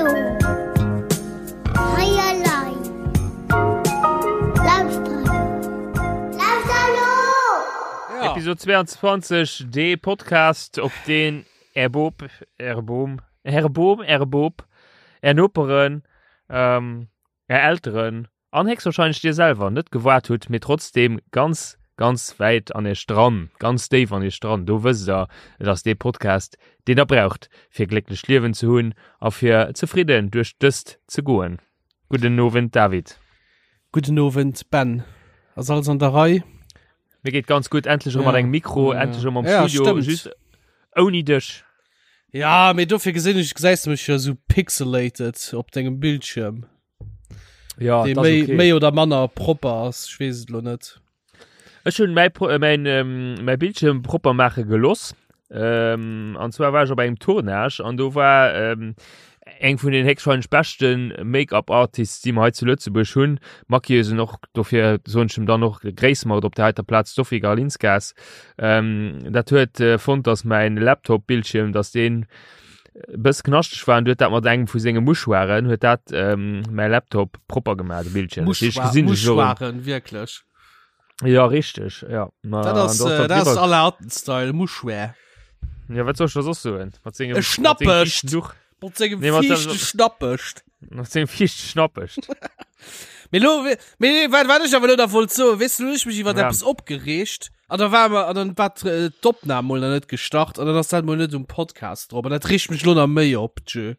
elo! Hei elei! Lauschter elo! Lauschter elo! Episode 22, dee Podcast, op deen Är Bop, Äre Bom, Äre Bom, Äre Bop, Är Noperen, ähm, Är Elteren an héchstwahrscheinlech Dir selwer net gewaart hutt, mee trotzdem ganz, ganz wäit an Iech dran, ganz déif an Iech dran, do wësst Der, et ass dee Podcast, deen Der braucht, fir e glécklecht Liewen ze hunn a fir zefridden duerch dëst ze goen. Gudden Owend, David. Gudden Owend, Ben. Ass alles an der Rei? Mir geet ganz gutt, endlech erëm mat engem Mikro, endlech erëm am Studio, just ouni dech. Ja, mee dofir gesinn ech, gesäis de mech jo esou pixelated op dengem Bildschierm. Ja, dee méi, okay. méi oder manner propper ass, ech weess et lo net. Ech hunn mäi, mäin, ähm, mäi Bildschirm propper maache geloss. Ähm, an zwar war ech op engem Tournage an do war ähm, eng vun den héchstwahrscheinlech beschten Make-up-Artists, déi mer hei zu Lëtzebuerg hunn. Maquilleusen och, dofir soen ech em dann och Gréiss mer et op der heiter Plaz, d'Sophie Garlinskas. Ähm, dat huet äh, fonnt, dass mäin Laptop-Bildschirm, dass deen e bëss knaschteg war an du huet dat mat engem vu senge Mouchoiren huet dat ähm, mäi Laptop propper gemaach, de Bildschirm. Das heescht, gesinn ech elo erëm. Mouchoiren, wierklech. Ja, richtig, ja. Ma, Dat ass, äh, dat ass aller Alten-Style, Mouchoir. Ja, wat soll ech da soss soen? Mat sengem, E Schnappecht! Duch. Mat sengem Nee, mat fiichte Schnappecht. Mat sengem fiichte Schnappecht. Mee lo, mee wat, wat ech awer lo da wollt soen, weess du, lo hunn ech mech iwwer ja. eppes opgereegt an da war mer, an dann war äh, d'Opnam mol nach net gestart an dann ass dat mol net um Podcast drop an dat reegt mech lo nach méi op, tjö.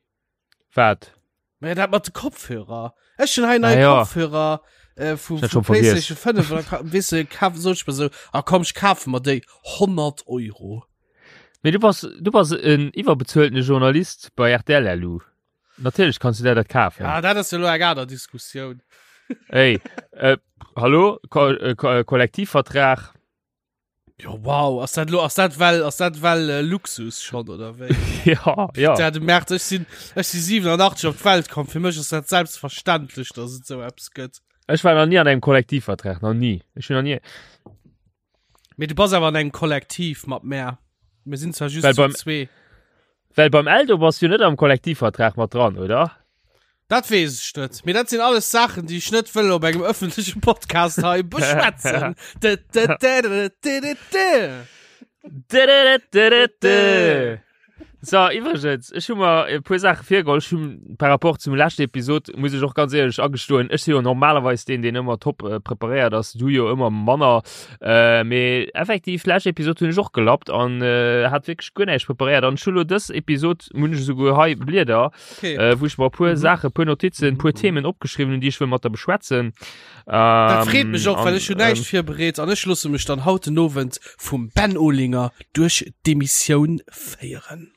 Wat? Ma ja, dat mat de Kopfhörer. Ech hunn hei nei ah, ja. Kopfhörer äh, vu, vu PlayStation 5 an dann weess du, kaf, sot ech mir so, ah komm, ech kafe mer déi 100 Euro. Mee du bass, du bass en iwwerbezueltene Journalist bei RTL, Lu. Natierlech kanns du der dat kafen. Ja, dat ass jo lo eng aner Diskussioun. Ey, äh, hallo, Ko äh, Ko äh, Kollektivvertrag. Jo, wow, ass dat lo, ass dat well, ass dat well äh, Luxus schon oder wéi? ja, ja. Ja, du merkst, ech sinn, ech si 87 op d'Welt komm, fir mech ass dat selbstverständlech, dass et sou eppes gëtt. Ech war nach nie an engem Kollektivvertrag, nach nie. Ech hunn nach nie. Mee du bass awer an engem Kollektiv mat mär. Mir sinn zwar just zu zwee. Well beim Eldo bass du net am Kollektivvertrag mat dran, oder? Dat weess ech net. Mee dat sinn alles Saachen, déi ech net wëll op engem ëffentleche Podcast hei beschwätzen. So, iwwregens, ech hu mer e puer Saache virgeholl. Ech hunn par rapport zum leschte Episod, muss ech och ganz éierlech agestoen, ech si jo normalerweis deen, deen ëmmer top äh, preparéiert ass, du jo ëmmer manner. Äh, mee effektiv, lescht Episod hunn ech och gelappt an äh, hat wierklech guer näischt preparéiert. An ech hu lo dës Episod, hunn ech esouguer hei Blieder, Okay. äh, wou ech mer e puer Mhm. Saache, puer Notizen, puer Mhm. Themen opgeschriwwen hunn, déi ech wëll mat der beschwätzen. Dat freet mech och, Ähm, well ech an, hunn näischt ähm, virbereet an ech loosse mech dann haut den Owend vum Ben Olinger duerch d'Emissioun féieren.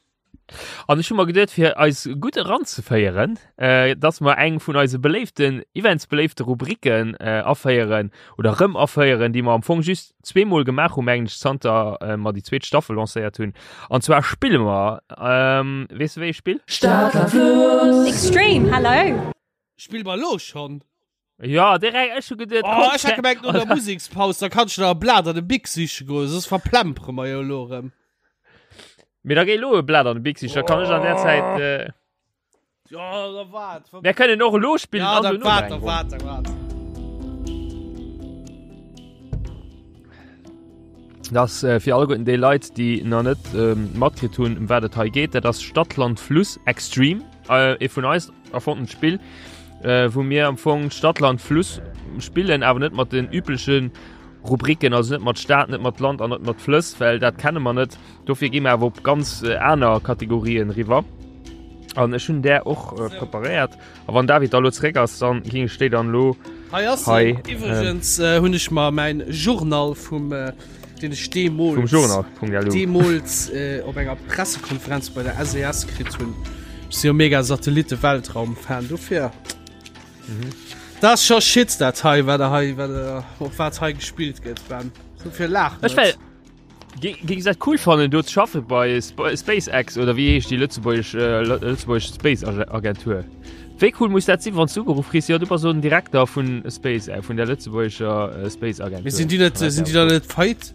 An ech hu mer geduet, fir eis gutt eranzeféieren, äh, dass mer eng vun eise beléiften, immens beléifte Rubriken äh, aféieren oder rëm aféieren, déi mer am Fong just zweemol gemaach hu mengen ech, zanter äh, mer déi zweet Staffel lancéiert hunn. An zwar spille mer, ähm, weess de wéi ee Spill? Stad, Land, Fluss. Extreme, hello! Spille mer elo schonn? Ja, direkt, ech hu geduet, Oh, komm, ech hat gemengt no der Musekspaus, da kannst du da e Blat an de Bic siche goen, soss verplempere mer jo elo erëm. Mee da géi elo e Blat an de Bic sichen, da kann ech an der Zäit. Äh, Ja, da waart. Mir kënnen och elo spillen Ja, an da dono waart, nach da eng Ronn. waart, da waart. Dat ass äh, fir alleguerten déi Leit, déi nach net ähm, matkritt hunn, ëm wat et hei geet. Dat ass Stadt, Land, Fluss Extreme, äh, ee vun eis erfonnent Spill, äh, wou mir am Fong Stadt, Land, Fluss spillen, awer net mat den üblechen Rubriken, also net mat Stad, net mat Land an net mat Flëss, well dat kenne mer net. Dofir gi mer awer op ganz äh, aner Kategorien riwwer. An ech hunn där och äh, preparéiert. A wann David da lo zeréck ass, dann ging ech déi dann lo Hei ass hei, en. Iwwregens äh, hunn ech mer mäin Journal vum äh, deen ech deemools vum Journal.lu. deemools äh, op enger Pressekonferenz bei der SES kritt hunn. Ech si jo mega Satellite-Weltraum-Fan, dofir. Mhm. Dat ass scho Shit dat hei, wat der hei, wat der, op wat hei gespillt gëtt, Ben. Dofir laach Ech net. well Géings dat cool fannen do ze schaffe bei SpaceX oder wéi heescht déi lëtzebuergesch äh, lëtzebuergesch Space Agentur? Wéi cool muss dat sinn, wann du ugeruff kriss, jo du bass so den Direkter vun Space äh, vun der lëtzebuergescher äh, Space Agentur. Mee sinn déi net, sinn déi da net feit?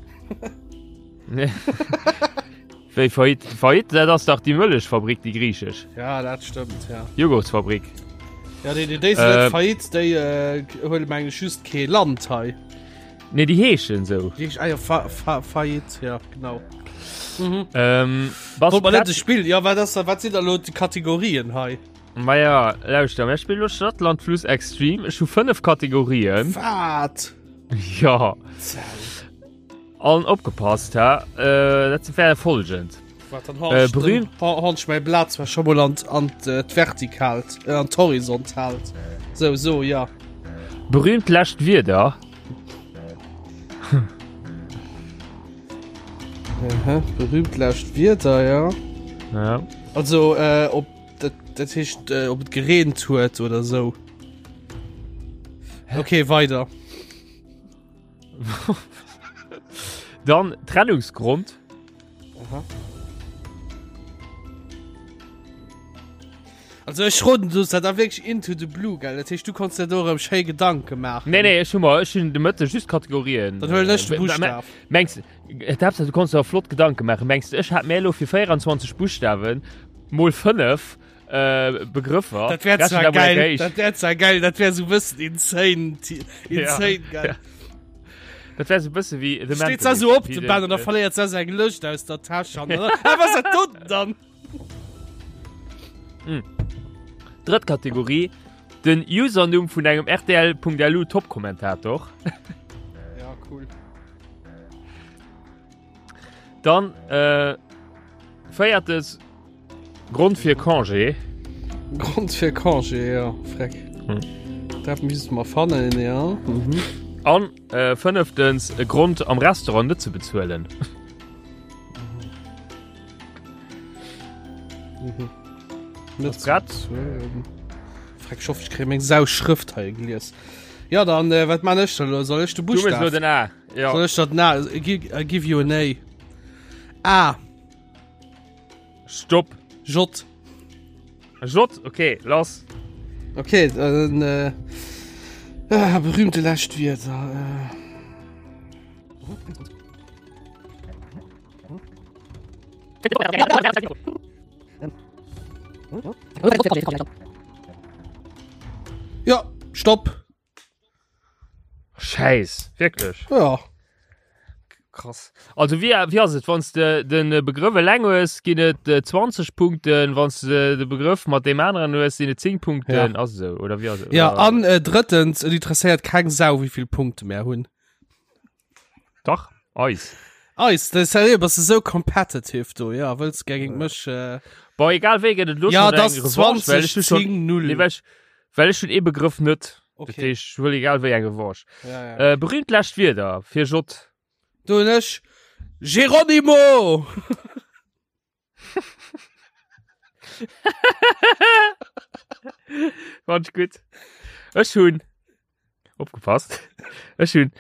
Wéi Faillite? Faillite, dat ass dach déi Mëllechfabrik, déi griichesch. Ja, dat stëmmt, ja. Joghurtsfabrik. Ja, déi, déi, déi sinn net äh, Faillite, déi äh, huele meng ech just kee Land hei. Nee, déi heeschen sou. Déi heeschen, ah ja, Fa, Fa, Faillite, ja, genau. Mhm. Ähm, bass Wollt mer net prett? e Spill, ja, wat ass da, wat sinn da lo déi Kategorien hei? Ma ja, lauschter, mir spillen lo Stadt, Land, Fluss Extreme. Ech hu 5 Kategorien. Wat? Ja. Zell. An opgepasst, ha, äh, dat wär folgend. Wat dann Äh, berühmt- Hans mein Platz war schon mal an an d'Vertikalt äh, an d'Horizontalt. So so ja. Berühmt lescht Wierder. Aha, berühmt lescht Wierder ja. Ja. Also äh, ob dat, dat heescht äh, ob et gereent huet oder so. Okay, weiter. Dann Trennungsgrund. Aha. Also ech roden du dat da wirklich into the blue gell dat heescht du konntest dir do erëm schéi Gedanke maachen. Nee nee ech hu mer ech hunn de Mëtte just Kategorien. Dann huelen ech de Äh, Buschtaf. Mengs äh, d'Haaptsaach du konntest der flott Gedanke maachen. Mengs du ech hat mär elo fir 24 Buschtawen mol 5 äh, Begrëffer. Dat wär Rechnen zwar da mol geil, eng dat wär zwar geil, dat wär sou bëssen insane, insane Ja, geil. ja. Dat wär sou bësse wéi The Steet Mentalist, se sou op wéi de den, Ben an da äh, verléiert se seng Lëscht aus der Täsch an dann, ah, was dat do dann? Drëtt Kategorie, den Usernumm vun engem RTL.lu Top-Kommentator. Ja, cool. Dann äh, véiertes Grond fir Congé. Grond fir Congé, ja, freck. Hm. Dat misst mer fannen, ja. Mhm. An äh, fënneftens e Grond am Restaurant net ze bezuelen. Mhm. Net Ass grad? bezuelen. Freck, ich hoffe, ich krieg meng Sau Schrëft hei gelies. Ja, dann, äh, wat man ech da lo? Soll ech de Du mechs lo Buchstaw? den A. Ja. Soll ech dat na? I give, I give you an A. A. Stopp. J. J, okay, lass. Okay, dann äh, ah, berühmte lescht Wierder. Äh. Ja, stopp. Scheiß, wirklich. Ja. Krass. Also wie, wie ass et, wann de den Begrëff eleng hues, ginn et 20 Punkten, wann de de Begrëff mat deem aneren hues, sinn et 10 Punkten, Ja. ass esou oder wie ass et? Ja, Oder- an äh, drëttens, et interesséiert keng Sau, wéi vill Punkte mer hunn. Dach, eis. Eis, das ist ja, bass du sou competitive do, ja, wëlls géint mech äh, Boah, egal wéi gëtt et lo Ja, schon das eng Revanche, well ech 20 hu schon, 10 0. nee, well ech, well ech hun ee Begrëff net. Okay. Dat heescht, ech huel egal wéi eng Revanche. Ja, ja. Äh, berühmt lescht Wierder fir J. Do hunn ech Geronimo! Fand ich gut. Ech hunn opgepasst. Ech hunn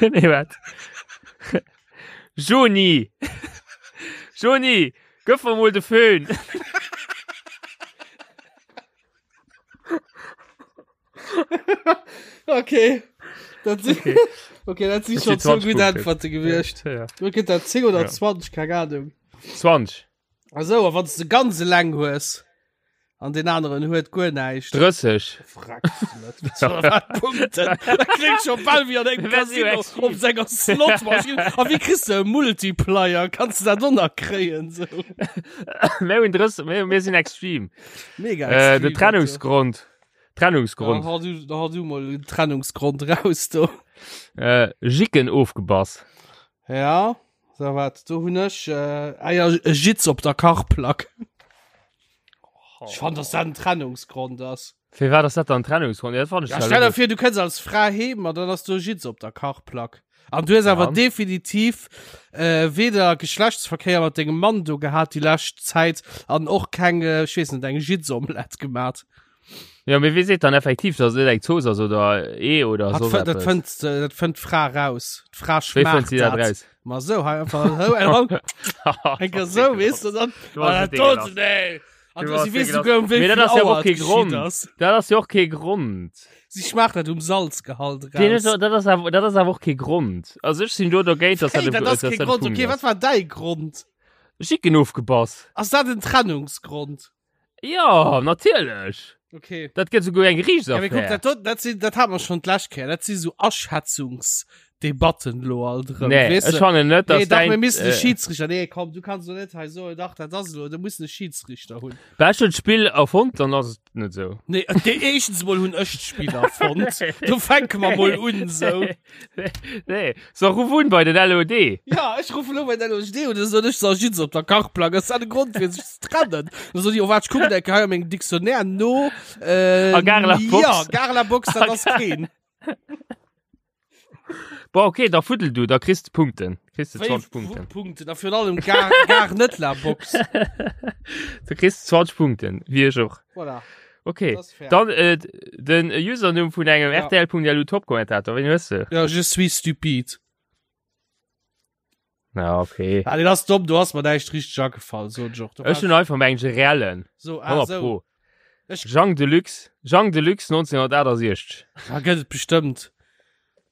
nee, wat? Joni! Joni, gëff mer mol de Föhn. Okay. Dat si Okay. okay, dat si Das schon sind zwou 20 gutt Punkte. Äntwerte gewiescht. Ja. Du gëtt dat 10 oder Ja. 20, keng Ahnung. 20. Also, a wann du ganz eleng hues an den aneren huet guer näischt. 30. Frag net. Wat Punkten? Dat klingt schon bal wéi an engem Wär si Casino extrem. op senger Slotmaschinn. A wéi kriss du e Multiplier? Kanns du dat och nach kréien? So. Mir hunn 30, mir, mir sinn extrem. Mega Äh, extrem, de Trennungsgrond. Trennungsgrond. Da hau du, da hau du mal den Trennungsgrond raus do. Äh, Jicken ofgebass. Ja, so wat, do hunn ech äh, ah ja, e Jitz op der Kachplack. Ich fand, dass dat en Trennungsgrond ass. Fir wat ass dat dann Trennungsgrond? Ja, dat fand ich Ja, zwar stell dir logesch. vir, du kënns als Fra heem an dann ass do e Jitz op der Kachplack. An du hues awer Ja. definitiv äh, weder Geschlechtsverkéier mat dengem Mann do gehat déi lescht Zäit an och keng, äh, ech weess net, eng Jitzomelett gemat. Ja, mee wie seet dann effektiv, dass et net eng Zooss ass oder Ee oder Hat soss fënnt, dat eppes? fënnt, äh, dat fënnt d'Fra raus. D'Fra Wéi fënnt schmaacht si dat dat. raus? Ma sou, hei einfach, sou, eng Hand, eng Kéier sou, weess du, dann, Du hast ah, et dat ekelhaft. do, nee. An Du si warst weess wéi souguer um wéi Mee dat vill ass jo Auer och et kee geschitt Grond. ass. Dat ass jo och kee Grond. Si schmaacht dat um Salzgehalt Deen raus. ass, dat ass awer, dat ass awer och kee Grond. Also ech sinn do dogéint, dass dat Hey, e, dat ass dass kee dat e Grond. Punkt Okay, wat ass. war däi Grond? Jicken ofgebass. Ass dat en Trennungsgrond? Ja, natierlech. Okay. Dat gëtt souguer eng Ja, mee kuck, Geriichtsaffär. dat, do- dat, sinn, dat hat mer schon d'lescht Kéier. Dat si so Aschätzungsdebatten lo alt erëm. Nee, Weess ech de? fannen net, Nee, dass dach, mir däin, missen e äh, Schiedsrichter. Nee, komm, du kanns lo net hei soen, dach, dat ass lo, du muss e Schiedsrichter hunn. Well ech hunn d'Spill erfonnt, dann ass et net sou. Nee, äh, dee, éischtens mol hunn ech d'Spill erfonnt. Do fänke mer mol un, sou. Nee, so ruf un bei den LOD. Ja, ech ruffen lo bei den LOD un, da soen ech, so, ech sitz op der Kachplank, ass dat e Grond fir sech ze trennen? Da soen déi, oh waart, ech kucken eng Kéier hei a mengem Dictionnaire no. Äh, A Gare la Box. Ja, Gare la Box, dat ass keen. Bon, okay, da fuddel du, da kriss de Punkten. Kriss de 20 Punkten. Punkten, a virun allem Gare, Gare net la Box. Du kriss 20 Punkten, wéi ech och. Voilà. Okay, Das ass fair. dann äh, den Usernumm vun engem Ja. RTL.lu Top-Kommentator, wen hues du? Ja, je suis stupide. Ja, okay. Ah, den ass domm, du hast mir näischt richtig agefall, so Joch. Du Ech hunn einfach meng reellen. so, ah, 100 so. Pro. Ech- Jean Deluxe, Jean Deluxe 1968. Da gëtt et bestëmmt.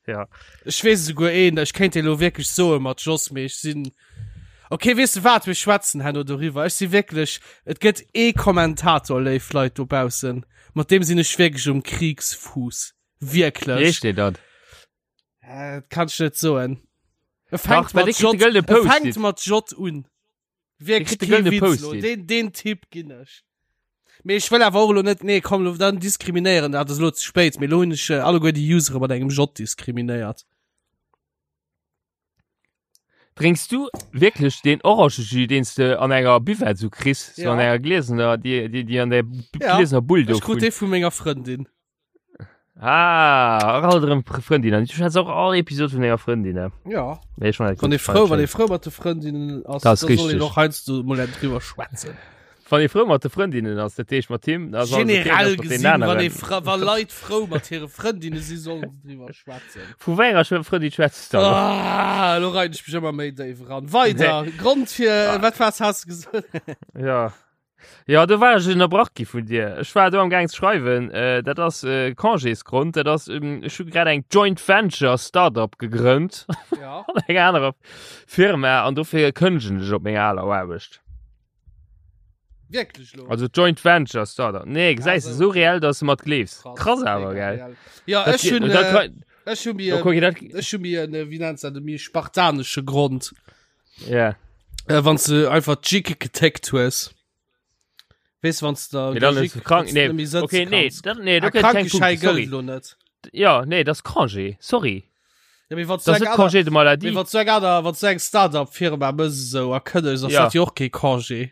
Ja. Ech weess esouguer een, ech kéint dee lo wierklech soe mat Jos, mee ech sinn. Okay, weess de wat, mir schwätzen herno doriwwer. Ech si wierklech, et gëtt ee Kommentator, léif Leit dobaussen, mat deem sinn ech wierklech um Kriegsfuß. Wéi Wierklech. heescht dee dann? Äh, dat kann ech net soen. E Dach, fänkt well mat dee kritt de J, gëllene e Post-it. fänkt mat J un. Wierklech kritt de kee gëllene Witz lo. Post-it. Deen, deen Tipp ginn ech. Mee ech wëll awer och elo net, nee komm, lo dann diskriminéieren, dat ass elo ze spéit, mee lo hunn ech äh, alleguer déi Usere mat engem J diskriminéiert. Drénks du wierklech deen Orangejus, deen s de an enger Buvette sou kriss, sou Ja. an enger gliesener, déi, déi, déi an der Ja. gliesener Bull do Ech krut vun? dee vu menger Frëndin. Ah, och alt erëm Frëndin. Du schwätz och all Episod vun denger Frëndin, ne? Ja. Nee, schon Wann ee frou, wann ee frou mat de Frëndinnen ass, Das da soll een richtig. och heiansdo mol eng driwwer schwätzen. Wann ee frou mat de Frëndinnen ass, dat heescht mat him, da ass alles okay, Generell ass mat den gesinn, wann aneren. ee fra wa Leit frou mat hire Frëndinne si, sollen se driwwer schwätzen. Vu wéi enger Schw- Frëndin schwätz du dann? Ah, lo rein ech mech ëmmer méi déif eran. Weider, Grond fir, wat was has du gesot? Ja. Ja, do war ech ënnerbrach gi vun dir. Ech war do am Gaang ze schreiwen, äh, dat ass äh, Congésgrond, dat ass, ähm, ech hu grad eng Joint Venture Startup gegrënnt Ja. an enger anerer Firma an dofir kënnegen ech op menger aler Aarbecht. Wierklech lo? Also Joint Venture Startup. Nee, gesäis du, Also- sou reell, dass du mat gleefs. Krass awer, Mega gell? reell. Ja, Dat ech ge- hunn, dat äh, kann- ech hu mir, Oh, guck, dat, ech hu mir en, äh, wéi nennt se dat, e méi spartanesche Grond. ja. Äh, wann du einfach d'Jicke getickt hues. Wees wann du da Nee, dann der ist Jick- krank. wann's Nee, net méi sëtze okay, nee, kanns. dat, nee, do Ah, gëtt keng Krankeschäi Punkte, sorry. gëllt lo net. Ja, nee, das ist Congé, sorry. Ja, mee wann du Das eng ist aner- Congé de mee maladie. wann du eng aner- wann du eng Startup-Firma mëss esou a kënnegst, ass Ja. dat jo och kee Congé.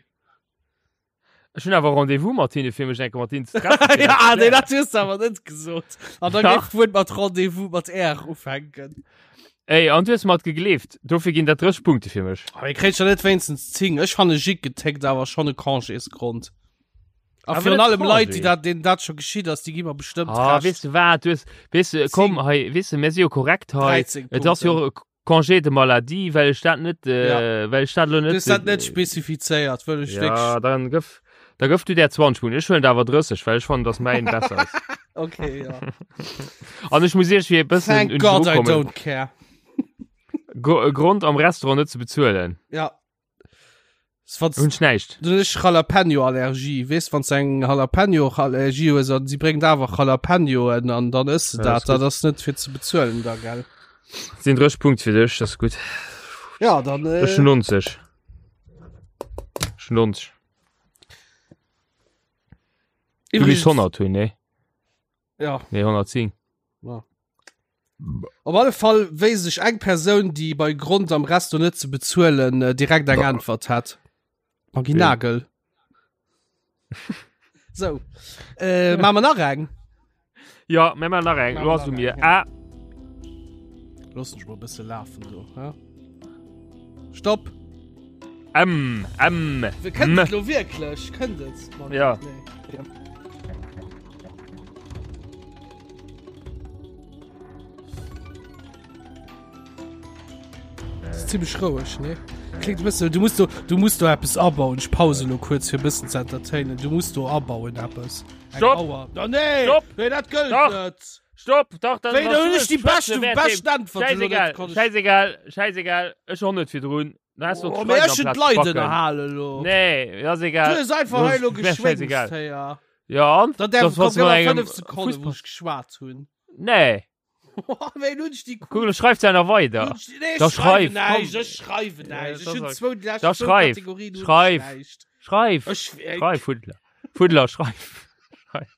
Ech hunn awer Rendez-vous mat hinne fir mech enke mat hinnen ze treffen. fir Ja, dat ze nee, klären. dat hues du awer net gesot. An dann Dach. géif d'Wuert mat Rendez-vous mat R ufänken. Ey, an du hues mat gegleeft. Dofir ginn dat 30 Punkte fir mech. Aber ihr kriegt ja net wéinstens 10. Ech fanne Jick getickt awer schon e Congésgrond. A Awer virun net allem Leit, déi Congé. dat, denen dat schon geschitt ass, déi gi mer bestëmmt Ah, Recht. weess du wat, du hues, weess du, komm hei, weess du, mir si jo korrekt hei. 13 Et ass jo Punkten. e Congé de maladie, well ech dat net, äh, Ja. well ech dat lo Du net. hues dat net spezifizéiert, wëll ech Ja, wirklich. dann gëff, da gëff du der 20 Punkten. Ech huelen der awer 30, well ech fannen, dass mäin besser ass. Okay, ja. An ech muss iech fir e bëssen Thank un God I kommen. don't care. Gro Grond am Restaurant net ze bezuelen. Ja. S- Wann Hunn ech näischt. Du hues Jalapeno-Allergie, weess, wann s eng Jalapeno-Allergie hues an si bréngt awer Jalapenoen an dann ëss de Ja, dat, ass gutt. dat ass net fir ze bezuelen da, gell? Sinn 30 Punkt fir dech, dat ass gutt. Ja, dann äh, Ech hunn 90. Ech hunn 90. Du misst iwwregens- 100 hunn, nee? Ja. Nee, 110. Ja. Op alle Fall wéisst ech eng Persoun, déi bei Grond am Resto net ze bezuelen äh, direkt eng Äntwert hat. Maggie Wien? Nagel. So. Äh, maache mer nach eng? Ja, mir maachen nach eng. Maache Lo mer ass u nach mir. eng, A. Looss mech mol e bësse lafen do. Ja? Stopp. M. M. Wir kënnt M. et lo wierklech? Kënnt et? Mann, Ja. Nee. Ja. Das ist ziemlich roueg, ne? Klingt bëssen, du musst do, du musst do eppes abauen. Ech pause lo kuerz fir bëssen ze entertainen. Du musst do abauen eppes. Eng Stopp! Auer. Da nee! Stopp! Nee, dat gëllt Dach! net! Stopp! Dach, dat Wéi, da hunn ech déi beschte, beschten Äntwert elo net Scheißegal, konnt ech- scheißegal, scheißegal. Ech hon net virdrun. Da hast du Oh, mee ech hunn d'Leit ënnerhalen elo. Nee, das ist egal. Du hues einfach Das hei elo ist mir scheißegal. geschwéngst, héier. Ja, an? Da därf Das was komm, mat gëff mer engem 5 Sekonnen, wou Fussball. ech geschwat hunn. Nee. Wéi hunn ech déi Guck, du schreibst ja noch weiter. Nee, Da ich schreiwe schreif, näischt, komm. ech schreiwe näischt. Ja, Ech das hunn sag- zwou, déi lescht Da zwou schreif, Kategorien hunn ech schreif. näischt. Schreif, Ech, äh, schreif, Fuddler. Fuddler, schreif. Schreif.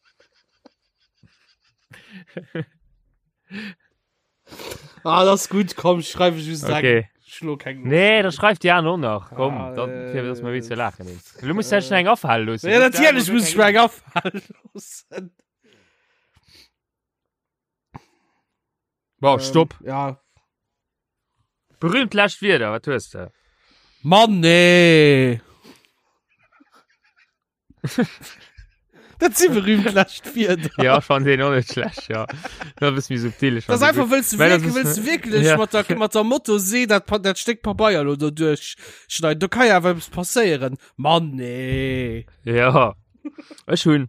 Ah, das ist gut, komm, schreibe ich just Okay. Schlo keng Nee, da schreift die anderen auch noch. Komm, Ah, dann, äh, fir dass wir wéi lachen. Du musst ja schon eng afhalen loossen. Ja, natierlech muss ich mir eng afalen loossen. Bon, stopp. Ähm, ja. Berühmt lescht Wierder, wat hues de? Mann, nee. Dat si berühmt lescht Wierder. Ja, ech fannen deen och net schlecht, ja. Dat e bësse méi subtil. ech Das fannen einfach dee wëlls du Well das wirklich, ist- wëlls du wirklich Ja. mat der, mat der Motosee dat, Pa- dat Stéck Pabeier lo do duerchschneiden. Do kann ja awer eppes passéieren. Mann, nee. gutt. Ja. Ech hunn.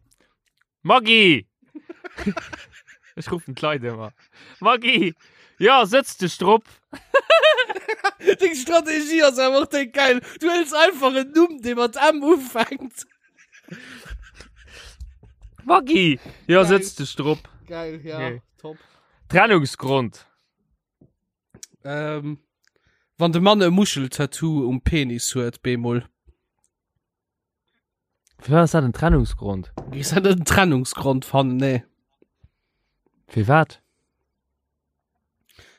Maggi! Ech ruffen d'Leit ëmmer. Maggi! Ja, sëtz dech drop! Deng Strategie ass awer och déi geil. Du hëls einfach en Numm, dee mat M ufänkt. Maggi! Ja, Geil. sëtz dech drop. Geil, ja, Okay. top. Trennungsgrond. Ähm, wann de Mann e Muscheltattoo um Penis huet, bemol. Firwat ass dat en Trennungsgrond? Is dat net en Trennungsgrond fannen? Nee. Firwat?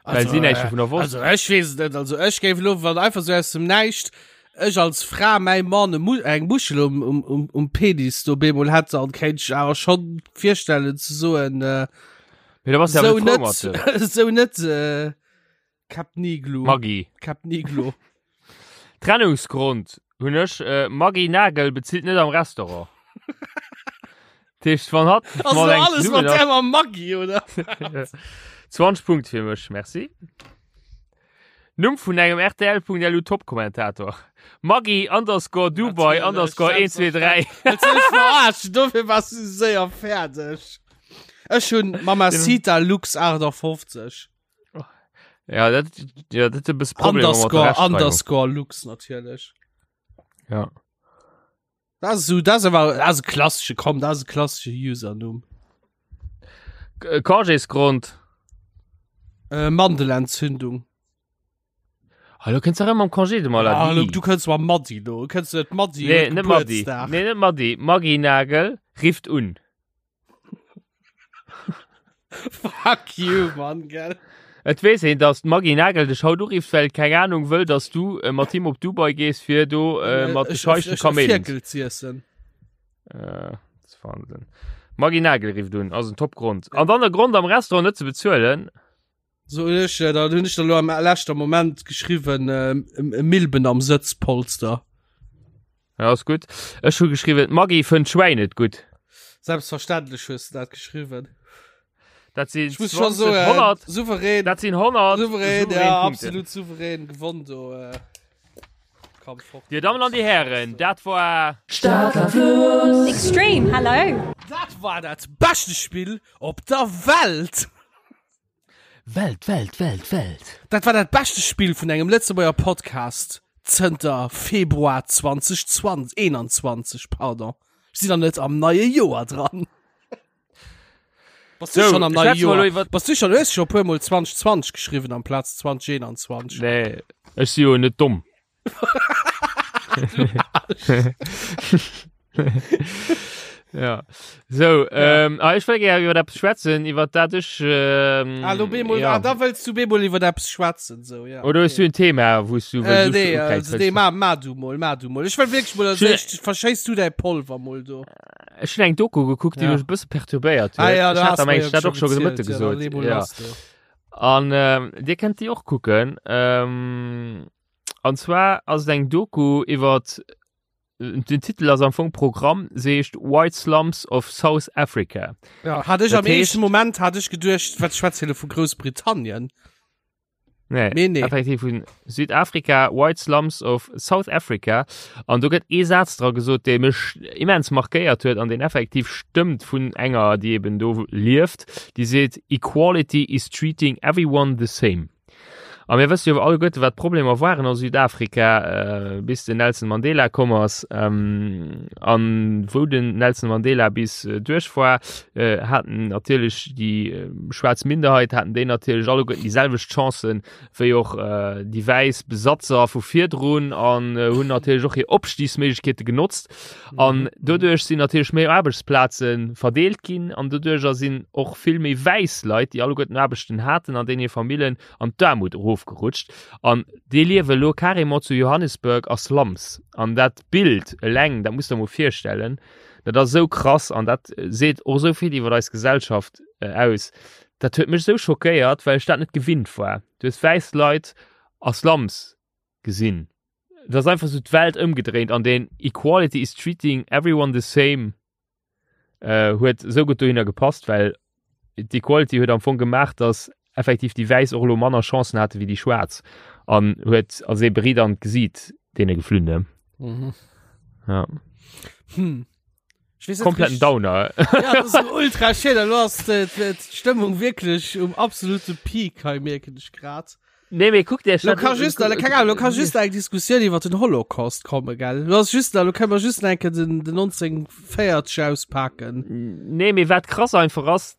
Well Also, si näischt äh, dovunner wosst. Also ech weess et net. Also ech géif elo, wann einfach sou aus dem Näischt ech als Fra mäi Mann e Mu eng Muschel um, um, um, um Penis do bemol hätt, dann kéint ech awer schonn virstellen ze soen, äh, Mee da bass du sou awer net frou mat net, dem. sou net, äh, Cap Niglo. Maggi. Cap Niglo. Trennungsgrond hunn ech, äh, Maggi Nagel bezilt net am Restaurant. Dat heescht, wann hatt Also mat engem alles zesummen mat ass- där mam Maggi, oder? 20 Punkt fir mech, merci. Numm vun engem RTL.lu Top-Kommentator. Maggi underscore Dubai Natierlech, underscore 1, 2, 3. Wëlls du mech verarschen? Dofir wars du séier fäerdeg. Ech hunn Mamacita Lux 58. Ja, dat, ja, dat e bësse Problemer mat der Underscore, Rechtschreibung. underscore Lux natierlech. Ja. Dat ass esou, dat ass awer, dat ass e klassesche, komm, dat ass e klassesche Usernumm. K- Congésgrond. Äh, Mandelentzündung. Hallo, kënns du erëm am Congé de Ah, maladie? lo, du kënns mam Madi lo, kënns du net Madi Nee, huet net Madi. Gebuertsdag. Nee, net Madi. Maggi Nagel rifft un. Fuck you, Mann, gell. Et weess een, dass d'Maggy Nagel dech haut urifft, well keng Ahnung wëll, dass du äh, mat him op Dubai gees, fir do äh, mat de Scheichen Kaméiden. Firkel z'iessen. Äh, das ist Wahnsinn. Maggy Nagel rifft un, ass en Top-Grond. An dann der Grond am Restaurant net ze bezuelen. So hunn ech, äh, dann hunn ech da lo am leschter Moment geschriwwen, äh, Milben am Sëtzpolster. Ja, ass gutt. Ech hu geschriwwen, d'Maggy fënnt Schwäin net gutt. Selbstverständlech hues du dat geschriwwen. Dat sinn Ich muss schon 20, so äh, 100, souverän, dat sinn 100 souverän, ja, Punkte. absolut souverän gewonnen do. Äh, komm fort. Dir Dammen an die Herren, dat war Stadler Extreme, hello. Dat war dat beschte Spill op der Welt. Welt, Welt, Welt, Welt. Dat war dat beschte Spill vun engem Lëtzebuerger Podcast zënter Februar 2020, 21, pardon. Ech sinn nach net am neie Joer dran. Bass du So, schon am neie schwätze mer elo Joer? iwwer- Bass du schon, du hues schon e puer Mol 2020 geschriwwen amplaz 2021. Nee, ech si jo net domm. Ja. So, ähm, ah, ech wëll gär iwwer eppes schwätzen, iwwer dat ech ähm, Ah, lo bemol, ja. ah, da wëlls du bemol iwwer eppes schwätzen, so, ja. Oder hues du en Thema, wou s du Äh, wëlls nee, ukräizen also, nee, ma, ma du mol, ma du mol. Ech wëll wierklech mol, als Schön- éischt verschéiss du däi Polver mol do. Ech hunn eng Doku gekuckt, déi Ja. mech e bësse perturbéiert huet. Ah ja, Ech da hat has am mer Englischen jo dat och schon scho de gezielt, Mëtte ja, da gesot. lee mol Ja. lass do. An ähm, dir kennt déi och kucken. Ähm, an zwar ass et eng Doku iwwer den Titel ass am Fong Programm, se heescht White Slums of South Africa. Ja, hat ech Dat am éischten heescht- Moment hat ech geduecht, wat schwätzt hie lo vu Groussbritannien? Nee, Nee, nee. effektiv vun Südafrika, White Slums of South Africa. An do gëtt ee Saz dra gesot, dee mech immens markéiert huet an deen effektiv stëmmt vun enger, déi eben do lieft, déi seet, Equality is treating everyone the same. A mir wësse jo alleguerte, wat d'Problemer waren a Südafrika, äh, bis den Nelson Mandela komm ass. Ähm, an wou den Nelson Mandela bis äh, duerch war, äh, haten natierlech déi äh, schwaarz Minderheit, haten déi natierlech alleguerten déi selwecht Chancen wéi och äh, déi wäiss Besatzer vu virdrun an äh, hunn natierlech och hir Opstiegsméiglechkeete genotzt. An doduerch sinn natierlech méi Aarbechtsplaze verdeelt ginn an doduercher sinn och vill méi wäiss Leit, déi alleguerten Aarbechten haten an deenen hir Famillen an d'Aarmut erofgerutscht. An déi liewe lo carrément zu Johannesburg a Slums. An dat Bild eleng, dat muss der mol virstellen, dat ass esou krass an dat seet och esou vill iwwer eis Gesellschaft aus. Dat huet mech esou schockéiert, well ech dat net gewinnt war. Du hues wäiss Leit a Slums gesinn. Et ass einfach esou d'Welt ëmgedréint an deen Equality is treating everyone the same äh, huet esou gutt dohinner gepasst, well d'Equality huet am Fong gemaach, dass effektiv déi Wäiss och elo manner Chancen hate wéi déi Schwaarz an huet als ee Beritt an d'Gesiit deene geflunn. Ne? Mhm. Ja. Hm. Ich weiß nicht Kompletten richtig- Downer. Ja, das ist ultra schön. Du hast äh, d'Stëmmung wirklich um absolute Peak, hei merken ich grad. Nee, mee kuck dir Lo kann just, lo kann, lo kann just eng Diskussioun iwwer den Holocaust kommen, gell? Lo ass just, lo können wir just enke den, den 1940 auspacken. Nee, mee wat krass einfach ass,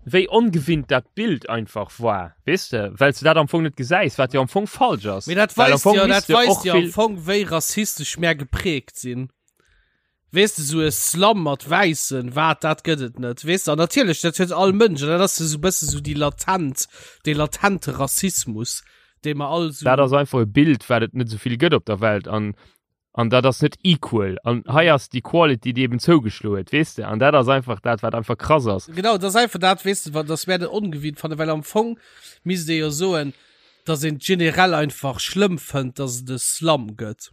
wéi ongewinnt dat Bild einfach war, weess de, well s de dat am Fong net gesäis, wat jo am Fong falsch ass. Mee dat Well am weist Fong jo, misst dat de och weist jo am vill- Fong, wéi rassistesch mär geprägt sinn. Weess de, sou e Slum mat Wäissen, wat, dat gëtt et net, weess de. An natierlech, dat huet all Mënsch, an dat ass esou e bësse sou déi latent, dee latente Rassismus, dee mer all sou. Dat ass einfach e Bild, wat et net esou vill gëtt op der Welt an an dat ass net equal. An hei ass d'Equality, déi eben zougeschloe huet, weess de. An dat ass einfach dat, wat einfach krass ass. Genau, dat ass einfach dat, weess de, wat, dass mär dat ongewinnt fannen, well am Fong misst ee jo soen, dass een et generell einfach schlëmm fënnt, dass et e Slum gëtt.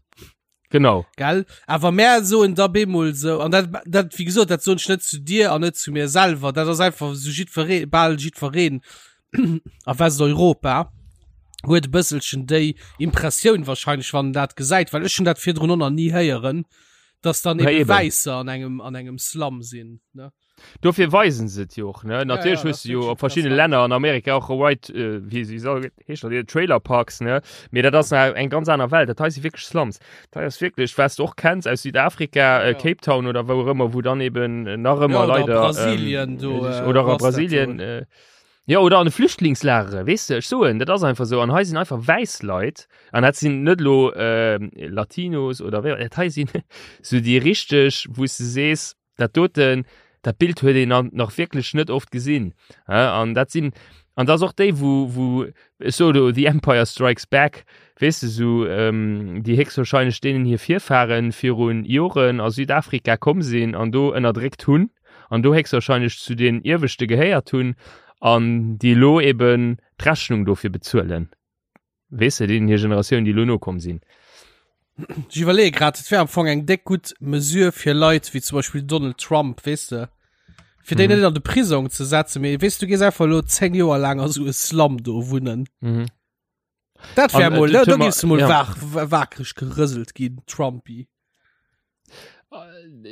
Genau. Gell? Awer mär soen da bemol sou, an dat, dat, wéi gesot, dat soen ech net zu dir an net zu mir selwer, dat ass einfach sou jiddweree, bal jiddwereen a Westeuropa huet e bësselchen déi Impressioun wahrscheinlech, wann en dat gesäit, well ech hunn dat virdrun och nach ni héieren, dass dann Ja, eben eben. Wäisser an engem, an engem Slum sinn, ne? Dofir weisen se et jo och, ne? Natierlech ja, hues dat du jo ass op verschiddene interessant. Länner an Amerika och White, äh, wéi wéi soll heescht dat, Trailer Parks, ne? Mee dat ass nach eng ganz aner Welt. Dat hei si wierklech Slums. Dat hei ass wierklech, wat s du och kenns aus Südafrika, äh, Ja. Cape Town oder wou och ëmmer, wou dann eben nach ëmmer Ja, oder leider Brasilien, do, ähm, äh, oder wo a ass dat Brasilien, do? äh, ja, oder an de Flüchtlingslagere, weess de, ech soen, dat ass einfach sou. An hei sinn einfach wäiss Leit, an dat sinn net elo äh, Latinos oder wéi, dat hei sinn sou déi richteg, wou s de sees, Dat doten, dat Bild huet een nach wierklech net oft gesinn. An dat sinn, an dat ass och déi, wou, wou, ech soe lo The Empire Strikes Back, weess de, sou déi héchstwahrscheinlech deenen hir Virfahren virun Joren a Südafrika komm sinn an do ënnerdréckt hunn an do héchstwahrscheinlech zu den Ieweschte gehéiert hunn an déi elo eben d'Rechnung dofir bezuelen. Weess de, deenen hir Generatioun, déi elo nokomm sinn. Ech iwwerleeë grad, et wär am Fong eng déck gutt Mesure fir Leit wéi zum Beispill Donald Trump, weess de, fir déi mhm. net an de Prisong ze setzen, mee weess du gees einfach lo 10 Joer laang a sou e Slum do wunnen. Mhm. Dat wär An, äh, mol, da, da Thema- giffs du mol ja. wach, wakreg gerëselt ginn, Trumpy.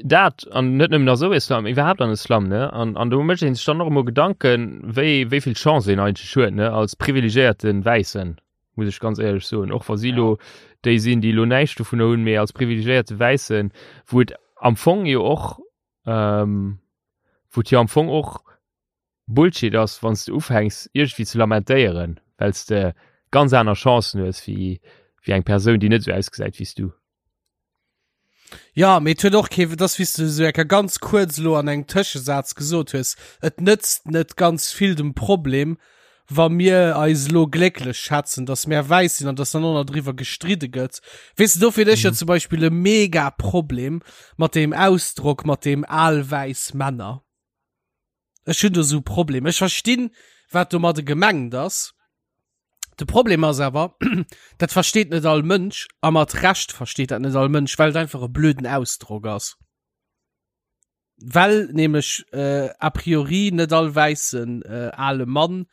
Dat an net nëmmen a sou e Slum, iwwerhaapt an e Slum, ne? An, an do mécht een sech dann och emol Gedanken, wéi, wéi vill Chance een eigentlech huet, ne? Als privilegiéierte Wäissen, muss ech ganz éierlech soen. Och wa si lo déi sinn, déi lo näischt dovunner hunn, mee als privilegiéierte Wäissen, wou et am Fong jo och, ähm, wou et jo am Fong och Bullshit ass, wann s de ufänks iergendwéi ze lamentéieren, well s de ganz aner Chancen hues wéi wéi eng Persoun, déi net esou ausgesäit wéi s du. Ja, mee et huet och kee, et ass wéi s de esou enker ganz kuerz elo an engem Tëschesaz gesot hues, et nëtzt net ganz vill dem Problem, wa mir eis elo glécklech schätzen, datt mär wäiss sinn an datt dann och nach driwwer gestridde gëtt. Weess de, dofir hunn ech jo zum Beispill e mega Problem mat deem Ausdrock, mat deem al wäiss Männer. Ech hunn do sou Problem. Ech verstinn, wat domadde gemengt ass. De Problem ass awer, dat versteet net all Mënsch a mat Recht versteet dat net all Mënsch, well et einfach e blöden Ausdrock ass. Well nämlech äh, a priori net all wäissen äh, ale Mann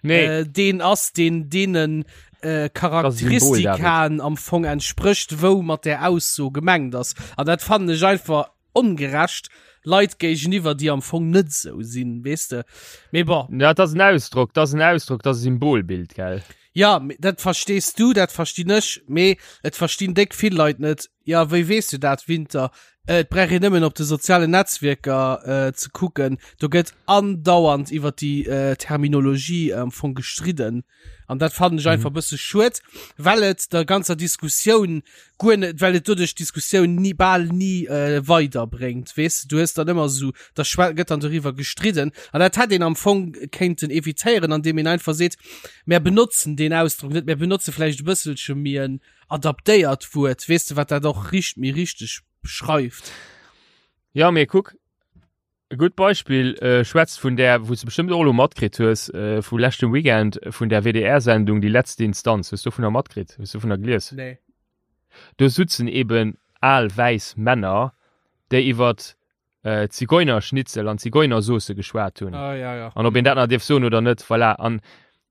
Nee. äh, deen ass, deen deenen. Äh, Charakteristikaen am Fong entsprécht, wou mat där Ausso gemengt ass. An dat fannen ech einfach ongerecht Leit géigeniwwer, déi am Fong net esou sinn, weess de. Mee bon. Ja, dat ass en Ausdrock, dat ass en Ausdrock, dat ass e Symbolbild, gell? Ja, dat verstees du, dat verstinn ech, mee et verstinn déck vill Leit net. Ja, wéi weess du dat, Winter? Äh, et brauch een nëmmen op de sozialen Netzwierker äh, ze kucken. Do gëtt andauernd iwwer déi äh, Terminologie am Fong gestridden. An dat fannen ech einfach mhm. bësse schued, well et der ganzer Diskussioun guer net, well et doduerch d'Diskussioun nie bal nie äh, weiderbréngt. Weess du, du hues dann ëmmer so, da gëtt dann doriwwer gestridden. An dat hätt een am Fong kéinten evitéieren, an deem een einfach seet, mär benotzen deen Ausdrock net, mär benotze vläicht e bësselche méi en adaptéiert Wuert, weess de, wat dat och richt méi richteg beschreift. Ja, mee kuck, E gutt Beispill schwätzt vun där, wou s de bestëmmt och elo matkritt hues, vu leschtem Weekend, vun där WDR-Sendung Die letzte Instanz. Hues du dovunner matkritt? Hues du dovunner gelies? Nee. Do sutzen eben al wäiss Männer, déi iwwert Zigeunerschnitzel an Zigeunersauce geschwat hunn. Ah, ja, ja. An ob een dat nach dierf soen oder net, voilà. An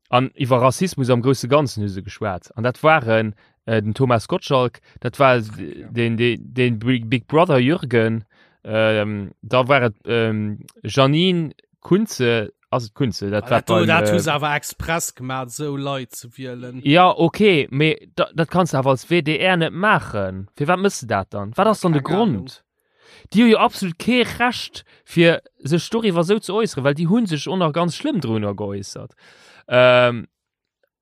An iwwer Rassismus am grousse Ganzen hu se geschwat. An dat waren äh, den Thomas Gottschalk, dat war den, den, den Big Brother Jürgen, ähm, da war et ähm, Janine Kunze, ass et Kunze, dat war beim, dat hu se awer express gemaat, esou Leit ze wielen. Ja, okay, mee da, dat kanns de awer als WDR net maachen. Firwat mëss de dat dann? Wat ass dann de Grond? Déi hu jo absolut kee Recht fir sech doriwwer esou ze äusseren, well déi hu sech och nach ganz schlëmm drunner geäussert. Ähm,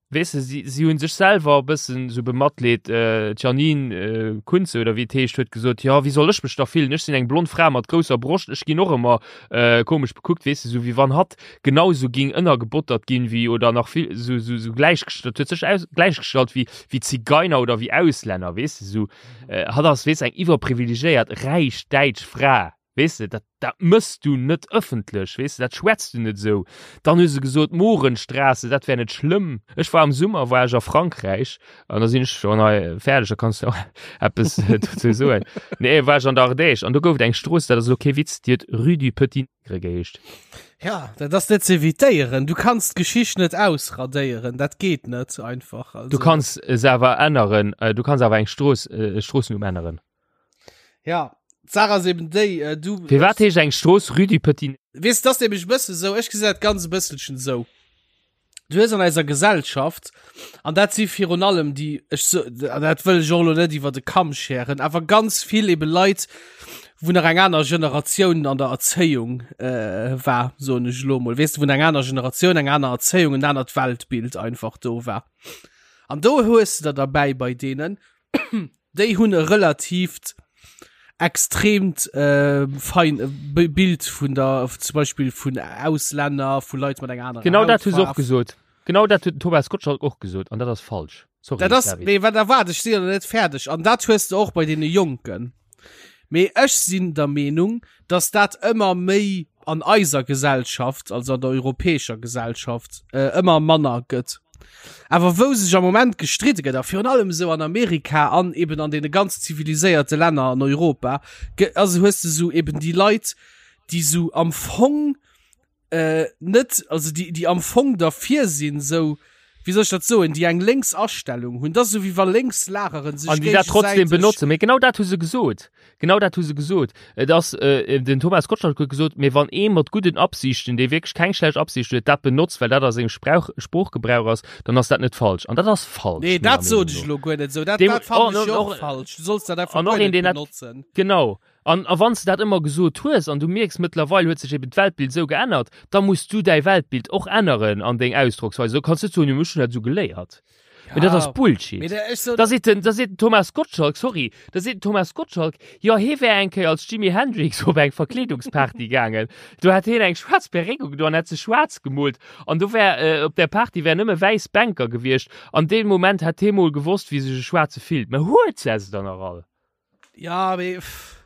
weess de, si, si hu sech selwer e bëssen esou bematleet. Äh, d'Janine äh, Kunze oder wéi et heescht huet gesot, jo wéi soll ech mech da fillen, ech sinn eng blond Fra mat grousser Broscht, ech ginn och ëmmer äh, komesch bekuckt, weess de, esou wéi wann hatt genau esou ging ënnergebottert ginn wéi oder nach vill esou, esou, esou gläichgestallt, huet sech aus, gläichgestallt wéi, wéi Zigeiner oder wéi Auslänner, weess de, esou. Äh, hatt ass, weess, eng iwwerprivilegéiert, räich däitsch Fra, weess de, dat, dat mëss du net ëffentlech, weess de, dat schwätz du net esou. Dann hu se gesot, Mohrenstraße, dat wär net schlëmm. Ech war am Summer, war ech a Frankräich, an da sinn ech schonn hei fäerdeg, da kanns du och eppes dozou soen. Nee, war ech an der Ardèche, an do gouf et eng Strooss, dat ass elo kee Witz, déi huet Rue du Petit Nègre geheescht. Ja, dat ass net ze evitéieren. Du kanns d'Geschicht net ausradéieren, dat geet net einfach. Also. Du kanns se awer änneren, äh, du kanns awer eng Strooss, äh, e Stroossenumm änneren. Ja, d'Saach ass eben déi, äh, du. Firwat heescht eng Strooss Rue du Petit Weess, dat ass nämlech e bësse sou, ech gesinn dat ganz e bësselchen sou. Du hues an eiser Gesellschaft, an dat si virun allem déi, ech so, an dat wëll ech och elo net iwwer de Kamm scheren, awer ganz vill ebe Leit, wou nach eng aner Generatioun an der Erzéiung äh, war, soen ech elo mol, weess de, wou eng aner Generatioun, eng aner Erzéiung, en anert Weltbild einfach do war. An do hues de der derbäi bei deenen, déi hunn e relatiivt extremt äh, fein äh, Bild vun der zum Beispiel vun Auslänner, vu Leit mat enger anerer Genau dat hu se och gesot. Genau dat huet den Thomas Gottschalk och gesot an dat ass falsch. Sorry, dat ass, mee wat erwaart ech si net fäerdeg an dat hues du och bei deene Jonken. Mee ech sinn der Meenung, dass dat ëmmer méi an eiser Gesellschaft, also an der europäescher Gesellschaft, äh, ëmmer manner gëtt. Awer wou sech am Moment gestridde gëtt, a virun allem esou an Amerika an eben an deene ganz ziviliséierte Länner an Europa, also hues de sou eben déi Leit, déi sou am Fong äh, net, also déi, déi am Fong derfir sinn, sou, wéi soll ech dat soen, déi eng lénks Astellung hunn. Dat ass esou wéi wa lénks Lageren sech An déi dat trotzdem géigesäiteg. benotzen. Mee genau dat hu se gesot. Genau dat hu se gesot. Et ass, äh, den Thomas Gottschalk huet gesot, mee wann ee mat gudden Absichten, dee wierklech keng schlecht Absicht huet, dat benotzt, well dat a sengem Sprauch, Sproochgebrauch ass, dann ass dat net falsch. An dat ass falsch, Nee, menger dat sot Meenung ech no. elo guer net esou. Dat, Deem, dat fannen oh, ech jo och, och falsch. Du solls dat einfach an och guer een, net deen dat, benotzen. genau. An a wann s de dat ëmmer gesot hues an du mierks, mëttlerweil huet sech eben d'Weltbild esou geännert, da muss du däi Weltbild och änneren an deng Ausdrocksweis. Do kanns du net soen, jo, ech hunn dat esou geléiert. Mee dat ass Bullshit. Da seet den, da seet den Thomas Gottschalk, sorry, da seet den Thomas Gottschalk, jo, hie wär eng Kéier als Jimi Hendrix op eng Verkleedungsparty gaangen. Do hätt hien eng schwaarz Perréck ugedoen an hätt sech schwaarz gemoolt. An do wär, op där Party wären nëmme wäiss Bänker gewiescht. An dee Moment hätt hie mol gewosst, wéi sech e Schwaarze fillt. Mä huet se se dann nach all? Ja, mee pff.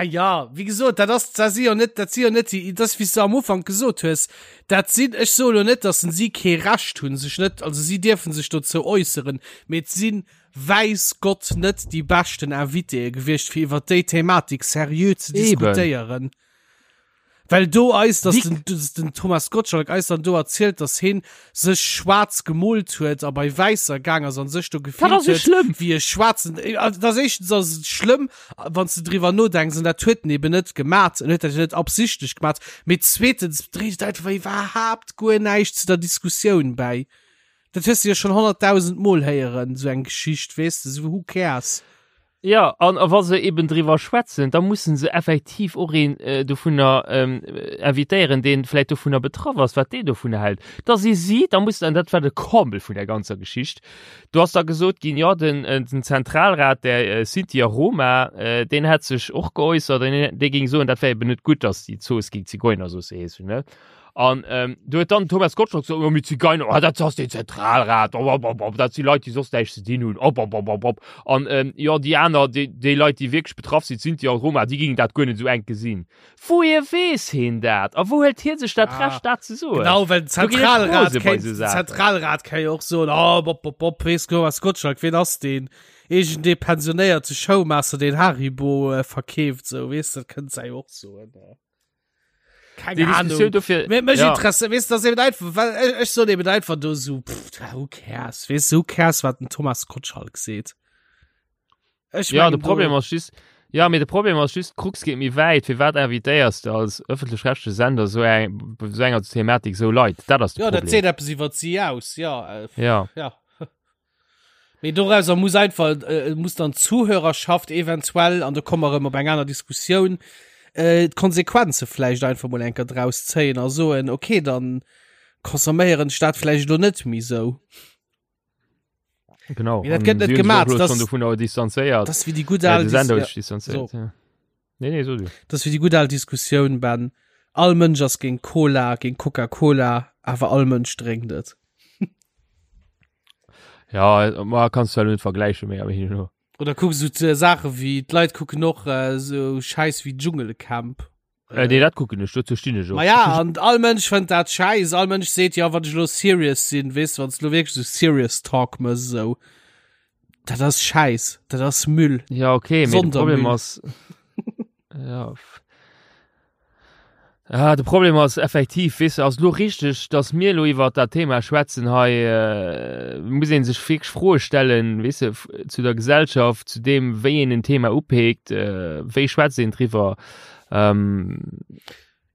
Ja, wéi gesot, dat ass, dat si jo net, dat si jo net déi, dat ass wéi s de am Ufank gesot hues, dat sinn, ech soe lo net, datt si kee Recht hunn, sech net, also si dierfe sech dozou äusseren, mee et si wäiss Gott net déi beschten Invitéë gewiescht, fir iwwer déi Thematik seriö ze Eben. diskutéieren. Well do eis, dass den, dass den Thomas Gottschalk eis dann do erzielt, dass heen sech schwaarz gemoolt huet a bei Wäisser gaang ass an sech do gefillt huet schlëmm. wéi e schwaarzen. Äh, also das éischtens ass et schlëmm, wann s de driwwer nodenks, an dat huet en eben net gemat, en huet dat jo net absichtlech gemat, mee zweetens dréit et einfach iwwerhaapt guer näischt zu der Diskussioun bäi. Dat hues de jo schonn 100.000 Mol héieren, sou eng Geschicht, weess de, sou who cares? Jo, an a wa se eben driwwer schwätzen, da mussen se effektiv och een dovunner invitéieren, dee vläicht dovunner betraff ass, wat deen dovunner hält. Da si si, da muss, an dat war de Comble vun där ganzer Geschicht, do ass da gesot ginn, jo, den, den Zentralrat der Sinti a Roma, deen hätt sech och geäussert an dee géing soen, dat wär eben net gutt, datt déi Zooss géing Zigeunersauce heeschen, ne? An ähm, du huet dann Thomas Gottschalk so, oh, mit Zigeuner, oh, dat ass den Zentralrat, oh, oh, oh, oh, dat si Leit, déi soss näischt ze dinn hunn, op, op, op, op, op. An ähm, jo, déi aner, déi, déi Leit, déi wierklech betraff sinn, d'Sinti a Roma, déi gingen dat guer net esou enk gesinn. Wouhier weess heen dat? A wou hëlt hie sech dat Ja, Recht, dat ze soen? Genau, well den Do ginn ech Zentralrat rose bei kéint, esou den Saachen. Zentralrat kann jo och soen, oh, bop, bop, bop, weess Thomas Gottschalk, ween ass deen? Iergendee pensionéierte Showmaster, deen Haribo äh, verkeeft, sou, weess, dat kënnt sei och soen. Äh. Keine Déi Ahnung. Diskussioun dofir, Mir, mech ja. interessiert, weißt du, das eben einfach, weil ich, ich so eben einfach do so, pff, who cares, weißt du, who cares, wat den Thomas Gottschalk seet. Ech Ja, mengen de Problem do, ass just, ja, mee de Problem ass just, d'Krux geet méi wäit. Firwat invitéiers de als ëffentlech-rechtleche Sender sou eng, bei sou enger Thematik sou Leit? Dat ass de ja, dat Problem. seet eppes iwwer si aus, ja, äh, Ja. ja. Mee dorauser muss einfach, äh, muss dann d'Zuhörerschaft eventuell, an do komme mer erëm op eng aner Diskussioun, äh, d'Konsequenze vläicht einfach mol enker draus zéien a soen, okay, dann consomméieren ech dat vläicht elo net méi sou. Genau. Mee dat gëtt net Si hunn sech och gemaat, elo das- schonn dovunner distanzéiert. Das wéi déi gutt Äh, al de Sender huet Dis- sech distanzéiert, so. ja. Nee, nee, so du. Das wéi déi gutt al Diskussioun, Ben. All Mënsch ass géint Cola, géint Coca-Cola, awer all Mënsch drénkt et. Ja, ma kannst du halt net vergleichen méi, awer hin und her. Oder kuck so Saache wéi d'Leit kucken och äh, so Schäiss wéi Dschungelcamp. Äh, nee, dat kucken ech, dozou stinn ech och. Ma ja, an all Mënsch fënnt dat schäiss. All Mënsch seet, ja, wann ech lo serious sinn, weess du, wann s lo wierklech so serious Talk mëss, esou. Dat ass Schäiss, dat ass Müll. Ja, okay, mee de Problem Sondermüll. ass. ja. Ah, de Problem ass effektiv, weess de, ass lo richteg, dass mir lo iwwer dat Thema schwätzen hei, äh, muss een sech wierklech Froe stellen, weess de, zu der Gesellschaft, zu deem, wéi een en Thema upeekt, äh, wéi schwätzt een driwwer. Ähm,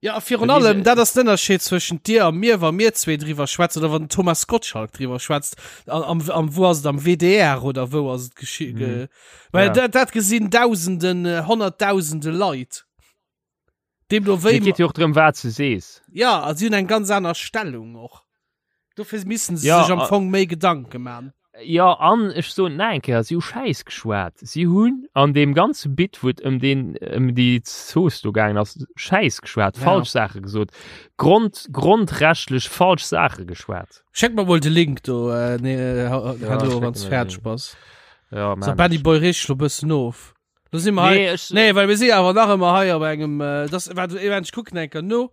Ja, a virun allem, dat ass den Ënnerscheed zwëschent dir a mir, wa mir zwee driwwer schwätzen oder wann den Thomas Gottschalk driwwer schwätzt, am, am, wou ass et, am WDR oder wou ass et geschi-, ge, well Ja. dat, dat gesinn Dausenden, Honnertdausende Leit. Deemno wéi. Et geet jo och drëm, wat s de sees. Ja, a si hunn eng ganz aner Stellung och. Dofir missen se Ja, sech am a- Fong méi Gedanke man. Jo, an ech soen et nach eng Kéier, si hu Schäiss geschwat. Si hunn an deem ganze Bit, wou et ëm deen, ëm déi Zooss do gaangen ass, Schäiss geschwat, Ja. falsch Saache gesot, Grond, grondrechtlech falsch Saache geschwat. Schéck mer mol de Link do, äh, nee, äh, Ja, herno, schécken wann s mer fäerdeg den. bass. Ja, So, man. Benny Boy, reeg dech lo bëssen of. Lo si mer hei. Nee, ech, Nee, well mir si awer nach ëmmer hei op engem, äh, das, wat, ech kucken eng Kéier no.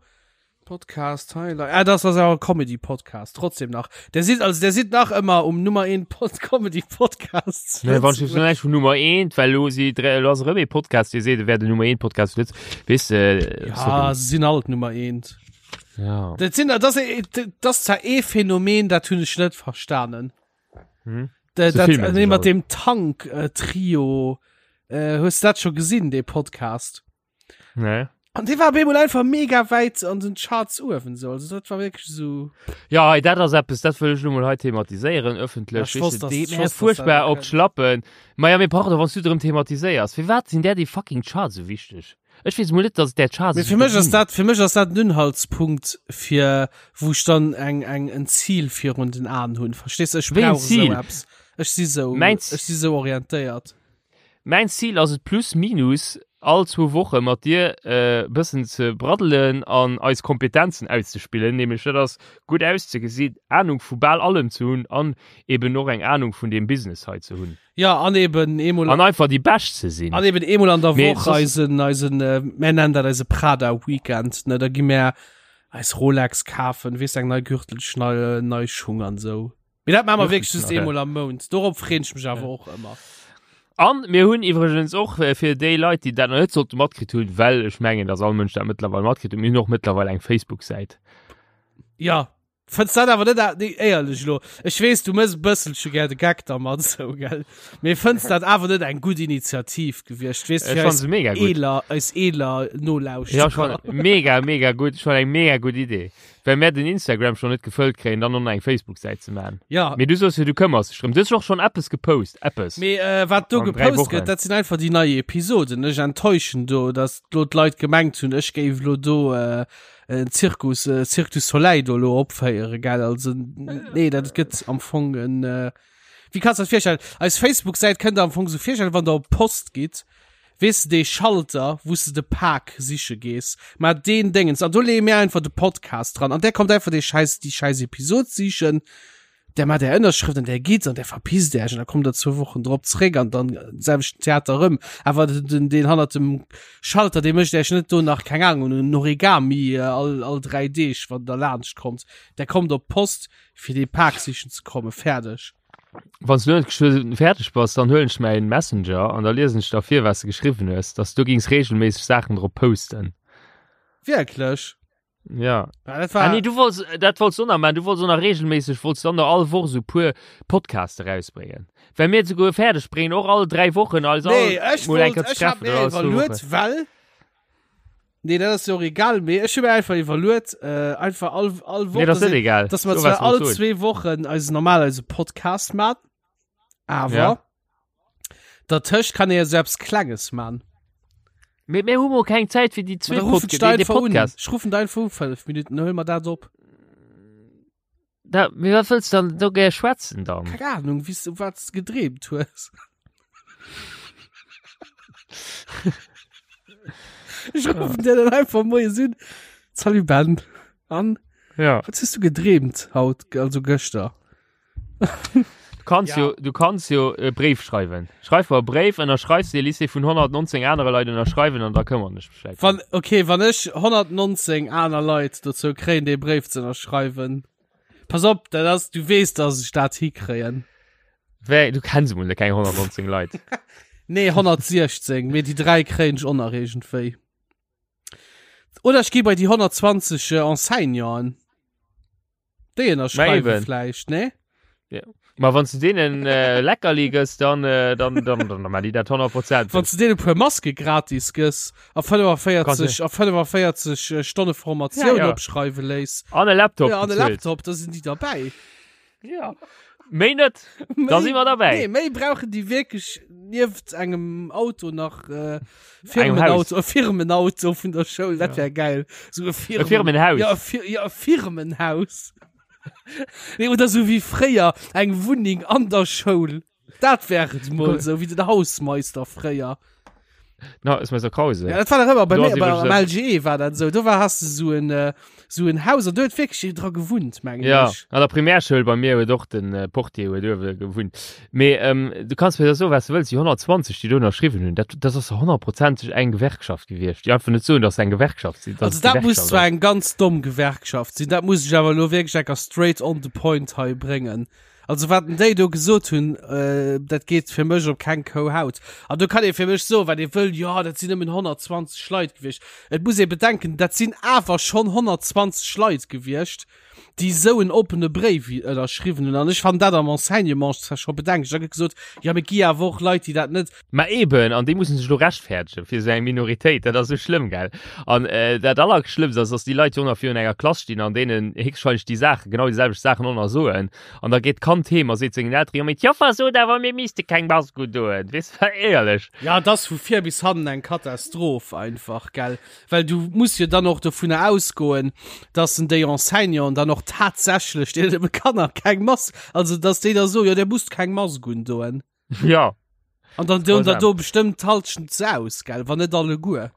Podcast Highlight. Ah, das ass awer Comedy Podcast trotzdem nach. Der sieht also der sieht nach ëmmer um Nummer 1 Pod Comedy Podcast. Nee, wann ich näischt vun Nummer 1, well lo si lo ass erëm ee Podcast, dee seet, e wär den Nummer 1 Podcast zu Lëtz. Weess de, Ja, sorry. se sinn alt Nummer 1. Ja. Dat sinn dat ass dat ass zwar ee Phänomen, dat hunn ech net verstanen. Hm? Dat, Se dat, filmen nee, sech mat all. dem Tank äh, Trio. Äh, hues du dat scho gesinn, dee Podcast? Nee. An dee war op eemol einfach mega wäit an den Charts uewen sou. Also dat war wierklech sou. Ja, hei, dat ass eppes, dat wëll ech lo mol hei thematiséieren, ëffentlech. Ja, ech wosst, Weess de, dass- deet ech mir wosst, dass fuerchtbar dat op d'Schlappen. Ma ja, mee pardon, wann s du drëm thematiséiers, firwat sinn där déi fucking Charts esou wichteg? Ech weess mol net, dass et där Charts Mee esou fir mech ass ginn. dat, fir mech ass dat en Unhaltspunkt fir wou ech dann eng, eng, en Zil virun den Aen hunn. Verstees du? Ech Wéi en brauch esou Zil? eppes. Ech si sou, Mäin ech si sou orientéiert. Mäin Zil ass et plus minus all zwou Woche mat dir e bëssen ze braddelen an eis Kompetenzen auszespillen, nämlech dat ass gutt auszegesinn, Anung vu bal allem ze hunn an eben och eng Anung vun deem Business hei ze hunn. Ja, an eben eemol An einfach déi Bescht ze sinn. An eben eemol an der Mee Woch soss- eisen, eisen, mär nennen dat eise Prada Weekend, ne, da gi mär eis Rolex kafen, weess eng nei Gürtelschnalle, nei Schung an sou. Mee dat maache mer wierklech just eemol am Mount. Dorop freen ech mech awer och ëmmer. An mir hunn iwwregens och äh, fir déi Leit, déi dat nach net sollte matkritt hunn, well ech mengen, dass all Mënsch dat mëttlerweil matkritt huet, mir hunn och mëttlerweil eng Facebook-Säit. Ja. Fënns dat awer net, nee, éierlech lo, ech weess, du mëss e bësselche gär de Geck dermat esou, gell, mee fënns dat awer net eng gutt Initiativ gewiescht, weess, Ech fir fann eis se mega gutt. eeler, eis eeler Ja, ech Nolauschterer? fann mega, mega gutt. Ech fann eng mega gutt Idee. Well mär den Instagram schon net gefëllt kréien, dann och nach eng Facebook-Säit ze man. Ja. Mee du soos jo, du këmmers dech drëm. Du hues och schon eppes gepost, eppes. Mee äh, wat do An dräi gepost Wochen. gëtt, dat sinn einfach déi nei Episoden. Ech enttäuschen do, dass lo d'Leit gemengt hunn, ech géif lo do äh, en Zirkus, äh, Cirque du Soleil do lo opféieren, gell? Also, nee, dat gëtt am Fong en, äh, wéi kanns du dat virstellen? Eis Facebook-Säit kënnt der am Fong sou virstellen, wann der op d'Post gitt, weess de, dee Schalter, wou s de de Pak siche gees, ma deen Déngens, an do leeë mir einfach de Podcast dran, an där kommt einfach dee schäiss, déi schäiss Episod sichen, där mat där Ënnerschrëft an där gitt an där verpisst Äech an da kommt der zwou Wochen drop zréck an dann selwechten Theater erëm. Awer den, deen hannert dem Schalter, dee mécht Äech net do nach, keng Ahnung, en Origami all, all 3 Deeg, wann der laanscht kommt. Der kommt op d'Post, fir dee Pak sichen ze kommen. Fäerdeg. Wann s du net geschwë fäerdeg bass, dann huelen ech mäin Messenger an da liesen ech der vir, wat s de geschriwwen hues, dass du gings regelméisseg Saachen drop posten. Wierklech? Ja. Ja, dat war Ah, nee, du wolltest, dat wolltest du nach machen. Du wolltest auch nach regelmäßig, wolltest dann noch all Woche so puer Podcasts rausbringen. Well mir sogar fertig bringen, auch alle drei Wochen, also Nee, all ech mal eng wollt, Kéier ech hab treffen mir oder all zwei iwwerluet, Wochen. well Nee, dat ass jo och egal, mee ech hu mir einfach iwwerluet, äh, einfach all, all Woch, Nee, das dass ist net egal. dass mer So, zwar was all wolltest du soen. zwee Wochen eisen normal eise Podcast mat, awer Ja. dertëscht kann ee jo sou eppes Klenges man. Mee mir hu mol keng Zäit fir déi Ma zwee da ruffen Podca ech der déi, déi einfach un. Podcast. Ech ruffen der einfach u 5 Minuten, dann huele mer dat op. Da, mee wat wëlls du dann do gär schwätzen dann? Keng Ahnung, wéi s du wat s du gedreemt hues. Ech ruffen dir dann einfach moies un. Salut Ben. An? Ja. Wat hues du gedreemt haut, also gëschter? Du kanns Ja. jo, du kanns jo e Bréif schreiwen. Schreif mer e Bréif, ënnerschreifs dee, liss dee vun 119 anere Leit ënnerschreiwen an da këmmern ech mech vläicht Wann, drëm. okay, wann ech 119 aner Leit dozou kréien, dee Bréif ze ënnerschreiwen. Pass op, dat ass, du weess, dass ech dat hikréien. Wéi, du kenns emol keng 119 Leit. Nee, 116, mee déi 3 kréien ech och nach iergendwéi. Oder ech gi bei déi 120 Enseignanten. Déi ënnerschreiwe vläicht, ne? Ja. Ma wann du denen äh, Leckerli gëss, dann, äh, dann, dann, dann, dann die dat 100 Prozent. Wann du denen puer Maske gratis gëss a 45 a 45 äh, Stonne Formatioun Ja, ja. opschreiwe léiss. An e Laptop. Ja, an e bezuelt. Laptop, da sinn déi derbäi. Ja. Méi net. Da si mer derbäi. Nee, méi brauchen déi wierklech nieft engem Auto nach äh, Engem Haus. Firmenauto, e Firmenauto vun der Schoul, dat wär geil. So e Firmen, E Firmenhaus. Ja, e, Fir, ja, e Firmenhaus. nee, oder so wéi fréier eng Wunneng an der Schoul. Dat wär et mol sou wéi den Hausmeister fréier. Na, ist Meister Krause. Ja, dat war doch ëmmer bei Do mir, ass bei, iwwregens am LGE war dat sou. Do war hast du so en äh, so en Haus an do huet wierklech een dra gewunnt, mengen Ja, ech. an der Primärschoul bei mir huet och den äh, Portier huet uewe gewunnt. Mee ähm, du kanns mir da soen, wat du wëlls, déi 120, déi do ënnerschriwwen hunn, dat, dat ass honnertprozenteg eng Gewerkschaft gewiescht, déi einfach net soen, dass se eng Gewerkschaft sinn. dass Also et dat muss Gewerkschaft zwar ass. eng ganz domm Gewerkschaft sinn, dat muss ech awer elo wierklech enker straight on the point hei bréngen. Also wat denn déi do gesot hunn, äh, dat geet fir mech op keng Kou Haut. An do kann ee fir mech soen, wat ee wëll, jo dat sinn nëmmen 120 Leit gewiescht. Et muss ee bedenken, dat sinn awer schonn 120 Leit gewiescht, déi esou en oppene Bréif ënnerschriwwen hunn. An ech fannen dat am Enseignement zwar scho bedenklech. Da gëtt gesot, jo mee et gi awer och Leit, déi dat net. Ma eben, an déi mussen sech elo rechtfäerdegen fir esou eng Minoritéit, dat ass esou schlëmm, gell? An dat Allerschlëmmst ass, dass déi Leit jo och nach virun enger Klass stinn an deenen héchstwahrscheinlech déi Saachen, genau déi selwecht Saachen och nach soen. An da geet d'Kand heem a seet sengen Elteren, jo mee d'Joffer sot awer, mir misste keng Mask undoen. Weess de, éierlech. Ja, et ass vu vir bis hannen eng Katastroph einfach, gell? Well du muss jo dann och dovunner ausgoen, dass en déi Enseignanten dann och tatsächlech deene Kanner keng Mask, also dass déi da soen, jo, dir musst keng Mask undoen. Ja. An dann doen der Grausam. do bestëmmt d'Halschent se aus, gell? Wann net alleguer.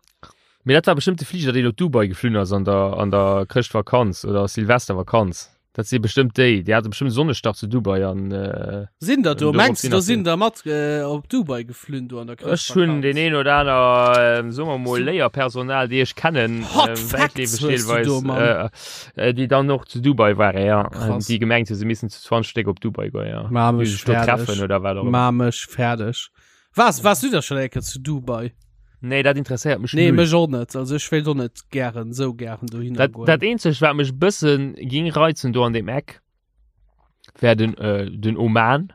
Mee dat war bestëmmt de Fliger, deen op Dubai geflunn ass an der, an der Chrëschtvakanz oder Silvestervakanz. Dat si bestëmmt déi. Déi hate bestëmmt Sonnestach zu Dubai an äh, Sinn der do? Dorop Mengs du, sinn do nach sinn der mat äh, op Dubai geflunn do an der Ech hunn Chrëschtvakanz? deen een oder aner, äh, soe mer mol, Léierpersonal, déi ech kennen, Hot äh, Facts wäitleefeg hues du deelweis, do, Mann. äh, äh, déi dann och zu Dubai waren, ja. Krass. Déi gemengt hunn, se missten zu 20 Stéck op Dubai goen, ja. Ma Déi mech sech do fäerdeg. treffen oder wat och ëmmer. Ma mech fäerdeg. Was warst du da schon eng Kéier zu Dubai? Nee, dat interesséiert mech Nee, mech och net. Also ech wéilt och net gären sou gären dohinner Dat, goen. dat eenzegt, wat mech bëssen ging reizen do an deem Eck, wär den, äh, den Oman.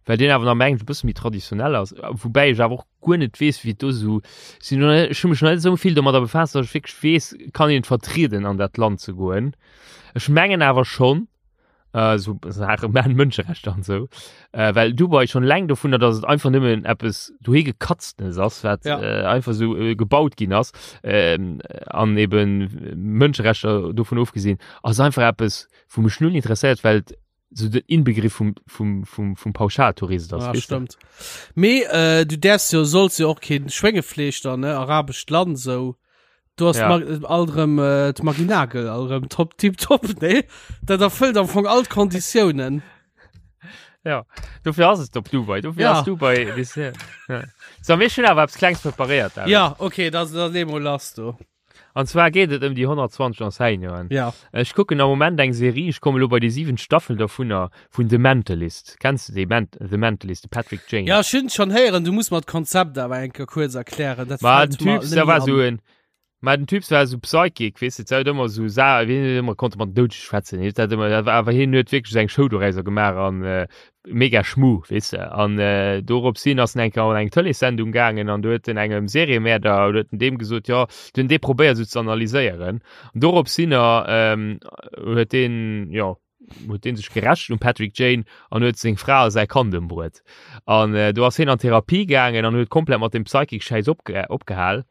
Well deen awer nach mengen ech e bësse méi traditionell ass. Woubäi ech awer och guer net weess, wéi et do esou, sinn noch net, ech hu mech nach net esou vill domadder befaasst, datt ech wierklech weess, kann een et vertrieden an dat Land ze goen. Ech mengen awer schonn, äh, so Saache man Mënscherechter an sou, äh, well Dubai schon läng dovunner, datt et einfach nëmmen eppes dohi gekatztenes ass, wat Ja. äh, einfach sou äh, gebaut ginn ass, ähm, an eben Mënscherechter dovun ofgesinn, ass einfach eppes, wou mech null interesséiert, well et sou den Inbegriff vum, vum, vum, vum Pauschaltourist ass. Ah, weess de? stimmt. Mee äh, du därfst jo solls jo och keen Schwéngefleesch dann ne arabescht Land sou. Du hast Ja. ja. all rem äh, d'Marie Nagel all rem top tip top nee dat erfëllt am Fong all d'Konditiounen. Ja, dofir ass et op Dubai, dofir Ja. ass Dubai weess de, ja. So, mir hunn awer eppes Klengs preparéiert, David. Ja okay da da lee mol lass du. An zwar geet et ëm déi 120 Enseignanten. Ja. Ech kucken am Moment eng Serie, ech komme lo bei déi siwent Staffel dovunner, vun The Mentalist. Kenns de dee Men The Mentalist, de Patrick Jane? Ja ech hunn schon héieren, du muss mer d'Konzept awer eng Kéier kuerz erklären. Dat Ma fällt den mer Typ, net der méi war an. sou en, ma den Typ war sou Psychic, weess de, huet ëmmer sou Sa wien huet ëmmer konnte mat den Doudege schwätzen, hien huet dat ëmmer, awer hien huet wierklech seng Show dorauser gemaach an äh, mega Schmu, weess de. An äh, dorops hin ass en eng Kéier an eng Tëleessendung gaangen an do huet en engem Seriemäerder, huet en deem gesot, jo, du huet en dee probéiert sou ze analyséieren. An dorops hinner ähm, huet deen, jo, huet deen sech gerächt um Patrick Jane an huet seng Fra a säi Kand ëmbruet. An äh, do ass hien an Therapie gaangen an huet komplett mat dem Psychic-Schäiss opge opgehal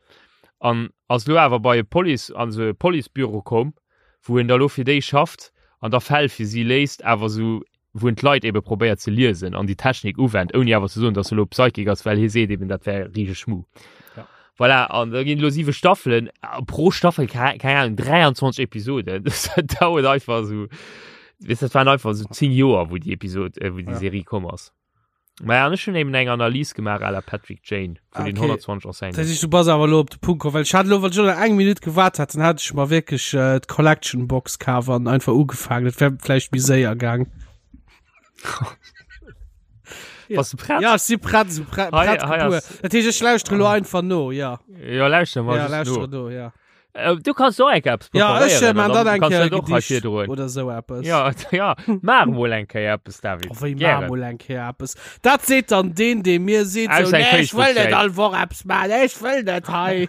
an ass lo awer bei e Police, an sou e Policebüro komm, wou en da lo fir déi schafft an da Fäll fir si léist, awer sou wou en d'Leit ebe probéiert ze liesen an déi Technik uwennt, ouni awer ze soen, datt e lo Psychic ass, well hie seet eben, dat wär richteg Schmu. Ja. Voilà, an da ginn lo siwe Staffelen, a pro Staffel, keng Ahnung, 23 Episoden. Dat dauert einfach esou, weess, dat waren einfach esou 10 Joer, wou déi Episod, äh, wou déi Ja. Serie komm ass. Maja, an ech hunn eben eng Analys gemaach à la Patrick Jane vun den Okay. 120 Enseignanten. Dat heescht, du bass awer lo op de Punkt komm, well ech hat lo, wann ech lo nach eng Minutt gewaart hätt, dann hätt ech mer wierklech äh, d'Collection Box kaf an einfach ugefaangen. Dat wär vläicht méi séier gaang. Ja. Bass du prett? Ja, ech si prett, sou prett, Hei- prett hei gebuer. ass- Dat heescht, ech lauschtere lo einfach no, ja. Ja, lauschter mal Ja, just no. lauschtere no, ja. Äh, du kannst och eng Kéier eppes Ja, ech preparéieren man an dann eng kannst Kéier du dat och hei Gedicht virdroen. oder sou eppes. Ja, ja, maach mol eng Kéier eppes, David. Oh, wéi maach Gären. mol eng Kéier eppes. Dat seet dann deen, dee mir seet, Aus sou, eng nee, ech wëll net Facebook-Säit. all Woch eppes maachen, ech wëll net hei.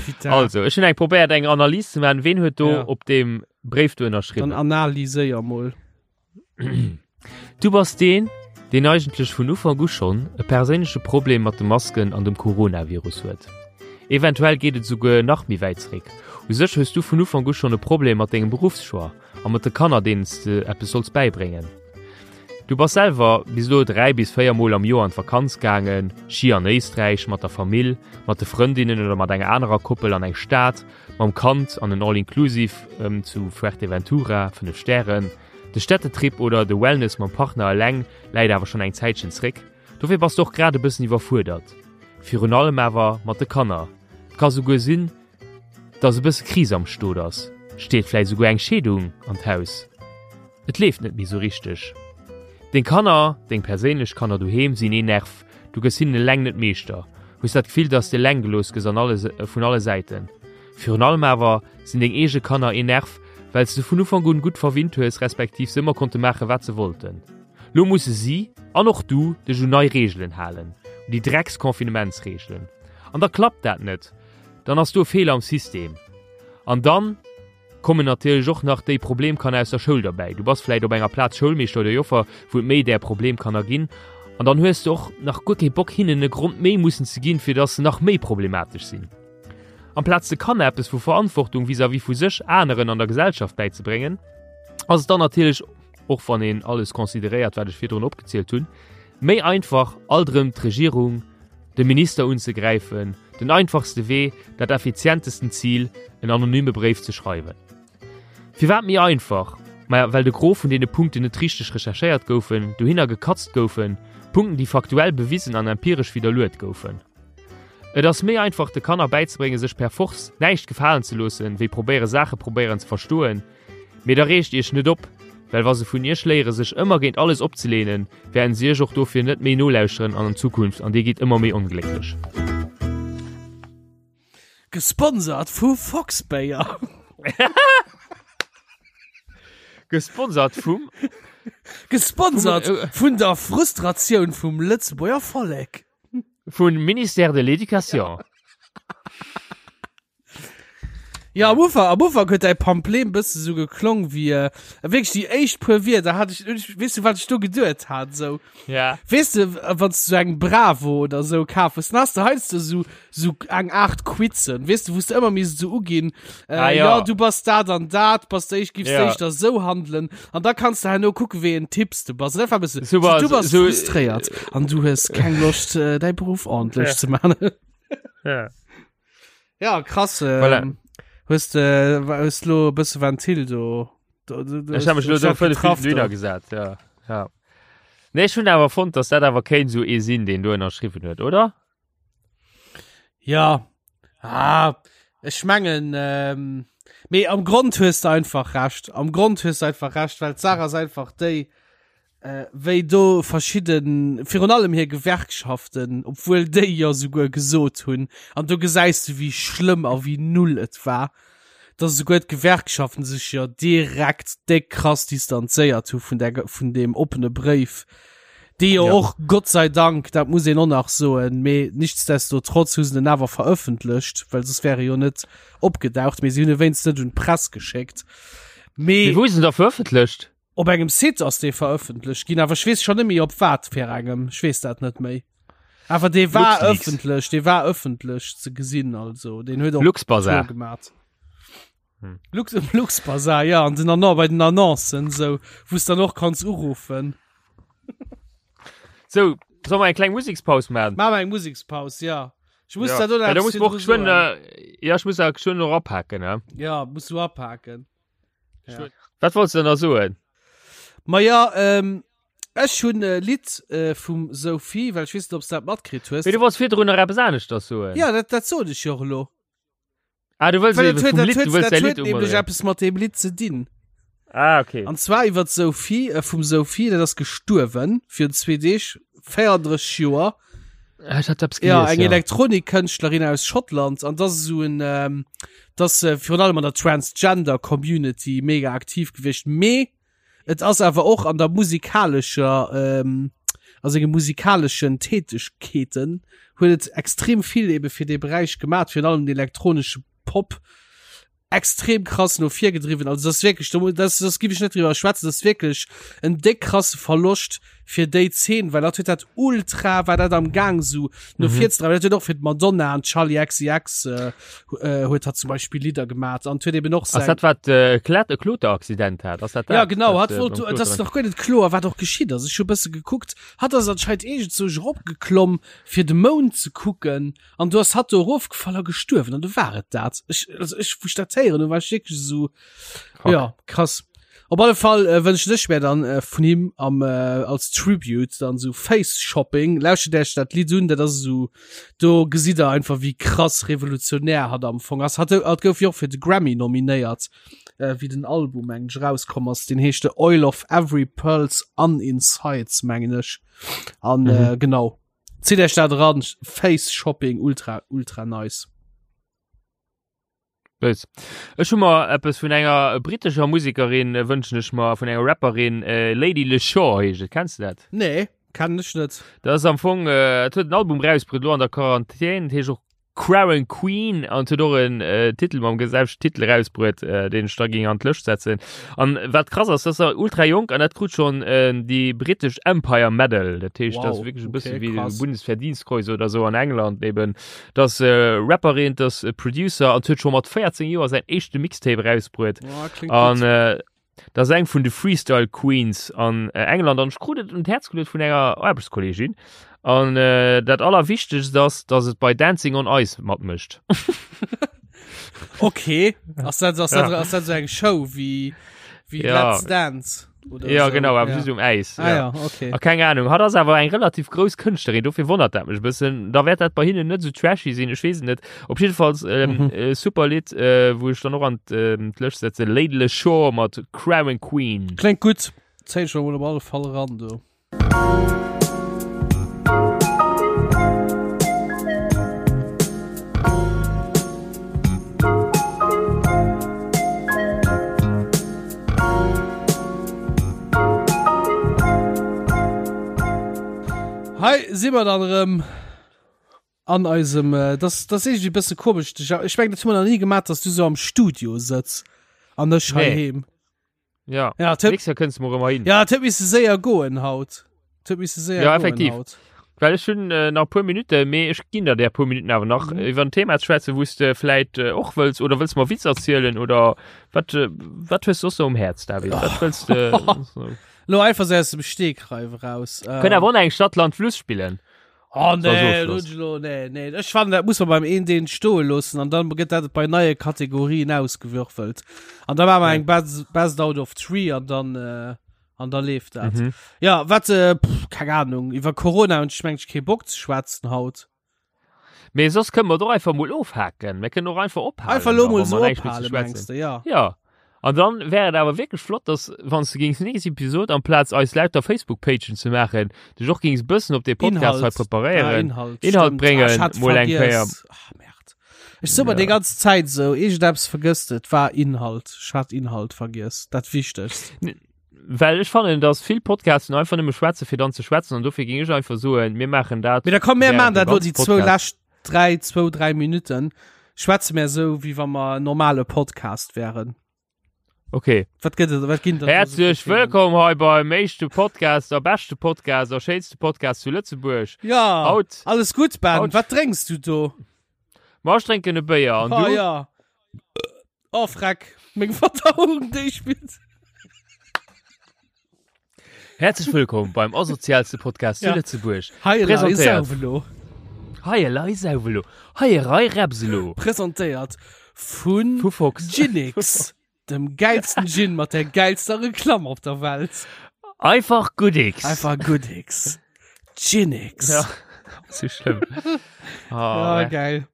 Putain. Also, ech hunn eng probéiert eng Analys ze maachen, ween huet do Ja. op deem Bréif do Dann ënnerschriwwen. analyséier mol. Du bass deen, deen eigentlech vun Ufank u schonn e perséinleche Problem mat de Masken an dem Coronavirus huet. Eventuell geet et esouguer nach méi wäit zeréck. U sech hues du vun Ufank u schonn e Problem mat dengem Beruffschoix a mat de Kanner, deenen s de eppes solls bäibréngen. Du bass selwer bis elo 3 bis 4 Mol am Joer an d'Vakanz gaangen, Ski an Éisträich, mat der Famill, mat de Frëndinnen oder mat enger anerer Koppel an eng Stad, mam Kand an en All-Inclusive zu Fuerteventura, 5 Stären. De Städtetrip oder de Wellness mam Partner eleng läit awer schonn eng Zäitchen zréck, dofir bass de och grad e bëssen iwwerfuerdert. Virun allem awer mat de Kanner. Et ka souguer sinn, dass e bësse Kris am Stot ass. Steet vläicht souguer eng Scheedung an d'Haus. Et leeft net méi sou richteg. Deng Kanner, deng perséinlech Kanner doheem sinn ee Nerv, du gëss hinnen eleng net Meeschter, hues dat Gefill, dass de eleng gelooss gëss an alle vun alle Säiten. Virun allem awer sinn deng eege Kanner een Nerv, well s de vun Ufank un gutt verwinnt hues, respektiv se ëmmer konnte maache wat se wollten. Lo musse si, an och du, dech un nei Reegelen halen, un déi Drecks-Confinementsreegelen. An da klappt dat net, dann ass do e Feeler am System. An dann kommen natierlech och nach déi Problemkanner aus der Schoul derbäi. Du bass vläit op enger Plaz Schoulmeeschter oder Joffer, wou et méi där Problemkanner ginn, an dann hues de och nach guer kee Bock hinnen e Grond méi mussen ze ginn, fir dass se nach méi problematesch sinn. Amplaz de Kanner eppes vu Verantwortung vis-à-vis vu sech, aneren an der Gesellschaft bäizebréngen, ass et dann natierlech, och wann een alles consideréiert, wat ech virdrun opgezielt hunn, méi einfach, alt erëm d'Regierung, de Minister unzegräifen, den einfachste Wee, dat effizientesten Zil, en anonyme Bréif ze schreiwen. Firwat méi einfach? Maja, well de Gros vun deene Punkten net richteg recherchéiert goufen, dohinner gekatzt goufen, Punkten, déi faktuell bewisen an empiresch widderluet goufen. Et ass méi einfach de Kanner bäizebréngen sech per Force näischt gefalen ze loossen, wéi probéiere Saache probéieren ze verstoen. Mee da reegt iech net op. Well wa se vun iech léiere sech ëmmer géint alles opzeleenen, wäerten se iech och dofir net méi nolauschteren an an Zukunft an dir gitt ëmmer méi onglécklech. Gesponsert vu Foxbéier. Gesponsert vum. Gesponsert vun der Frustratioun vum Lëtzebuerger Vollek. Vun Ministère de l'Education. Ja, am Ufank, am Ufank huet däi Pamplé e bësse sou geklong wéi, äh, wierklech déi éischt puer Wierder hat ech, ech, weess du, wat ech do geduet hat, sou? Ja. Weess de, wann s du sou eng Bravo oder sou kaf hues, dann has de heiansdo sou, sou eng Aart Quizen, weess de, wou s de ëmmer misst sou uginn, äh, Ah, ja. ja, du bass dat an dat, bass de éischt, giffs Ja. de éischter sou handelen, an da kanns de herno kucken, wéi een Typ s du bass. An dat war e bësse, Sou war- du bass sou- frustréiert an du hues keng Loscht, äh, däi Beruff ordentlech Ja. ze man. Ja. Ja, krass. Ähm, Voilà. Hues de hues lo e bësse Ventil do. do, do, do Ech habe mech lo do vëlle getraff vill do. gesat, ja. ja. Nee, ech hunn awer fonnt, dass dat awer kéint sou ee sinn, deen do ënnerschriwwen huet, oder? Ja. Ah, ech mengen, ähm, mee am Grond hues de einfach recht. Am Grond hues de einfach recht, well d'Saach ass einfach déi, wéi do verschidden, virun allem hir Gewerkschaften, obwuel déi jo souguer gesot hunn, an do gesäis du wéi schlëmm a wéi null et war, dass esouguer d'Gewerkschaften sech jo direkt déck krass distanzéiert hu vun där, vun deem oppene Bréif, dee jo Ja. och, Gott sei Dank, dat muss een och nach soen, mee nichtsdestotrotz hu se en awer verëffentlecht, well soss wär e jo net opgedaucht, mee si hunn e wéinst net un d'Press geschéckt. Mee Mee wou is en da verëffentlecht? Op engem Site ass dee verëffentlecht ginn, awer ech weess schon net méi op wat fir engem. Ech weess dat net méi. Awer dee war LuxLeaks. ëffentlech, dee war ëffentlech ze gesinn, also deen huet och Luxbazar. Tour gemat. Hm. Lux, Luxbazar, ja, an den Annon, bei den Annoncen, sou, wou s dann och kanns uruffen. So, soll mer eng kleng Musekspaus maachen? Maache mer eng Musekspaus, ja. Ech muss Ja. dat och nach Ja, da eppes muss mer och virdru geschwënn, soen. äh, ja, ech muss da geschwënn och apaken, ne? Ja, muss du apaken. Ja. Wat wollts du denn da soen? Ma ja, ähm, ech hunn e Lidd äh, vum Sophie, well ech weess net, ob s dat matkritt hues. Mee du wollts virdrun nach eppes aneschters soen. Ja, dat, dat sot ech jo och elo. Ah, du wëlls Well eben dat huet, vum dat Lidd, huet, du wëlls dat däi huet Lidd nämlech umoderéieren. eppes mat deem Lidd ze dinn. Ah, okay. An zwar iwwer d'Sophie, äh, vum Sophie, dat ass gestuerwen virun zwee Deeg, 34 Joer. Ah, Ech hat eppes Ja, gelies, eng ja. Elektronikkënschtlerin aus Schottland an das ist so en ähm, das äh, virun allem an der Transgender Community mega aktiv gewiescht. Mee et ass awer och an der musikalescher ähm, a senge musikalischen Tätigkeeten huet et extrem vill ebe fir dee Beräich gemat, virun allem den elektronische Pop extrem krass no vir gedriwwen. Also das ist wirklich, da das, das gif ich net drüber schwätzen, das ist wirklich en déck krasse Verloscht fir déi Zeen, well dat huet dat ultra, war dat am Gang so no mhm. vir ze dreiwen. Dat huet och fir d'Madonna an Charlie XCX äh, äh, huet hat zum Beispiel Lieder gemat an huet eben och sein. Ass dat wat äh, Klet e Kloteraccident hat? Ass dat dat? Ja genau, hat wollt, das ist nach guer net kloer, wat och geschitt ass. Ech hu bësse gekuckt, hat ass anscheinend iergend sou eropgeklomm fir de Mound ze kucken. An du ass hatt do erofgefall a gestuerwen an du war et dat. Ech, also ech, wou ech dat héieren hunn, war ech wierklech esou, Fuck. ja, krass. Op alle Fall äh, wënschen ech mir dann äh, vun him am, äh, als Tribute dann so Face Shopping. Lauschtert Iech dat Lidd un, dat ass esou, do gesitt der einfach wéi krass revolutionär hatt am Fong ass. Hatt, hatt gouf jo och fir de Grammy nominéiert, äh, wéi den Album, mengen ech, erauskomm ass. Deen heescht The Oil of Every Pearl's Uninsides, mengen ech. An mhm. äh, genau. Zitt Iech dat eran, Face Shopping, ultra, ultra nice. Bëss. Ech hu mer eppes vun enger brittescher Musekerin äh, wënschen ech mer vun enger Rapperin äh, Lady Leshore heescht et. Kenns du dat? Nee, kennen ech net. Dat ass am Fong äh, et huet en Album rausbruet lo an der Quarantän, dat heescht och Crown Queen an huet och en äh, Titel mam selwechten Titel rausbruet, äh, deen ech da ging an d'Lëscht setzen. An wat krass ass, dat ass ultra jonk an dat krut schon äh, déi britesch Empire Medal. Dat heescht, dat ass Wow, wierklech e bësse okay, wéi de krass. Bundesverdienstkreuz oder sou an England eben. Dat ass äh, Rapperin, dat ass Producer an huet scho mat 14 Joer säin éischte Mixtape rausbruet. Oh, klingt An gutt. äh, Dat ass eng vun de Freestyle Queens an äh, England an ech krut et un d'Häerz geluet vun enger Aarbechtskollegin. An äh, dat allerwichtegst ass, dass et bei Dancing on Ice matmécht. Okay, ass dat, ass dat, Ja. ass dat so eng Show wéi, wéi Ja. Let's Dance? Oder Ja so. genau, awer ja. just um Äis. Ah, ja, okay. A keng Ahnung, hatt ass awer eng relativ grouss Kënschtlerin, dofir wonnert dat mech e bëssen. Da wäert dat bei hinnen net sou trashy sinn, ech weess et net. Op jiddefalls ähm, Mhm. äh, super Lidd, äh, wou ech dann och an ähm, d'Lëscht setze, Lady Leshurr mat Crown Queen. Kléngt gutt. Zéien ech mer mol op alle Fall eran do. Hei si mer dann erëm an eisem äh, das das ist irgendwie bësse komisch. Ech mengen dat hu mer nach nie gemaach, dass du so am Studio sëtz an ech Nee. heiheem. Ja, Ja, et huet- nächstes Jahr kënnst du mer ëmmer hin. Ja, et huet misse séier goen haut. Et huet misse séier Ja, goen effektiv. haut. Well ech hunn äh, nach e puer Minutte, mee ech ginn der där puer Minutten awer nach, Mhm. äh, iwwer en Thema ze schwätzen, wou s de vläit äh, och wëlls oder wëlls mer Witz erzielen oder wat äh, wat hues du soss um Häerz, David? Wat wëlls de? so. Lo einfach sou aus dem Stegreif eraus. Ähm, Kënnt awer och nach eng Stadt, Land, Fluss spillen. Oh nee, So, so lo, nee, nee. Ech fannen, dat muss man beim een deen stoe loossen an dann gëtt dat bei neie Kategorien ausgewürfelt. An da maache mer eng Best, Best out of Three an dann äh, an da leeft dat. Mhm. Ja, wat äh, pff, keng Ahnung, iwwer Corona hunn ech mengt kee Bock ze schwätzen haut. Mee soss kënne mer et och einfach mol ofhaken. Mir kënnen och einfach ophalen. Einfach lo da, mol wa so mer näischt méi ze ophalen, schwätzen. mengst du, ja. Ja. An dann wär et awer wierklech flott, dass wann s de géings nächst Episod amplaz eis lauter Facebook-Pagen ze maachen, dech och géings bëssen op dee Podcast hei Inhalt. Ah, preparéieren. Inhalt, Inhalt stimmt. bréngen, Ah, ech hat mol eng Kéier. vergiess. Ah, Merd. Ech so mer déi ganz Zäit sou, iergendeppes vergësst et war Inhalt. Ech hat Inhalt vergiess, dat Wichtegst. Well ech fannen, dass vill Podcasten einfach nëmme schwätzen, fir dann ze schwätzen an dofir géing ech einfach soen, mir maachen dat. Mee da komm, mir während maachen dem dat lo ganzen déi zwou Podcast. lescht dräi, zwou, dräi Minutten schwätze mir sou, wéi wa mer en normale Podcast wären. Okay. Wat gëtt et, wat ginn dat do sou fir Häerzlech Themen? wëllkomm hei beim éischte Podcast a beschte Podcast a schéinste Podcast zu Lëtzebuerg. Ja, Haut, alles gutt, Ben. Haut- Wat drénks du do? ma ech drénken e Béier an Oh du? ja. Oh freck, meng Verdauung, déi spillt. Häerzlech wëllkomm beim asozialste Podcast zu Ja. Lëtzebuerg. Hei elei Presentéiert. Sauwelo. Hei elei Sauwelo. Hei erei Repselo. Presentéiert vun Vu Fox. Ginix, dem geilsten Gin mat der geilster Reklamm op der Welt. Einfach Goodix. Einfach Goodix. Ginix. Ja. So schlimm. Oh, Ja, ja, geil.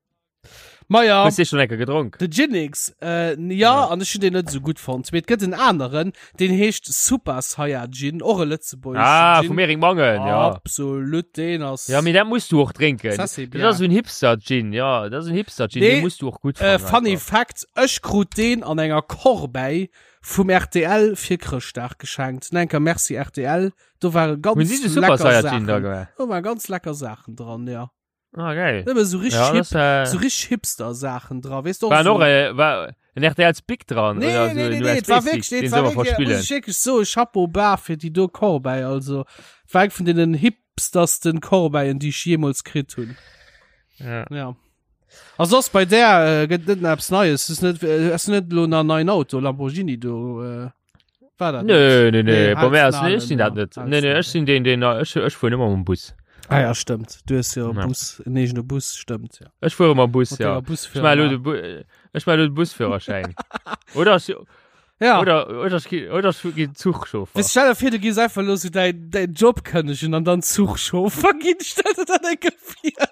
Ma ja. Hues du schon enker gedronk? De Ginix, äh, ja, an ech hunn deen net esou gutt fonnt. Mee et gëtt en aneren, deen heescht Super Saiyajin, och e lëtzebuergeschen Ah, Gin. vum Eric Mangen, ja. Absolut, deen ass. Ja, mee dat muss du och drénken. Ça, c'est Dat bien. ass esou en Hipster-Gin, ja, dat ass en Hipster-Gin, Nee, dee muss du och gutt Äh, fannen. funny einfach. Fact, ech krut deen an enger Corbeille vum RTL fir Chrëschtdag geschenkt. Enker Merci RTL, do ware ganz Hunn si de Super lecker Saiyajin da Saachen. gemaach? Do waren ganz lecker Saachen dran, ja. Ah, geil. Nëmme so richtig Ja, hip, das, äh, so richtig Hipster-Saachen dran, weißt du? war noch äh, war en RTL Spick dran Nee, oder so nee, nee, en nee, et war USB-Stick, wirklich, nee, den et soll war man wirklich, verspillen. muss ich wirklich so, Chapeau bas fir déi do Corbeille, also, war eng vun den hipstersten Corbeillen, déi ich jemals kritt hunn. Ja. Ja. A soss bei der äh, gëtt net eppes Neies, ist net, äh, ass net lo na neien Auto, Lamborghini do, äh, war dat net? Nö, nö, nö, Nee, bei mir ass, halt's nee, ech sinn dat Nalen, net. ja, Nee, nee, halt's ech sinn deen, deen, ech, ech fuer ëmmer mam Bus. Ah ja, stimmt. Du hast ja, Ja. Bus, en eegene Bus, stimmt, ja. Ech fuere mam Bus, Mat ja. denger Ech Busfirma. maache lo de Bu ech maache lo de Busführerschäin. Oder ech, Ja. oder, oder ech gi, oder ech gi Zuchchauffer. Weißt, stell dir vor, du gehst einfach los so dein, dein Job kündigen und dann Zugchauffer gehen. Stell dir das eng vor.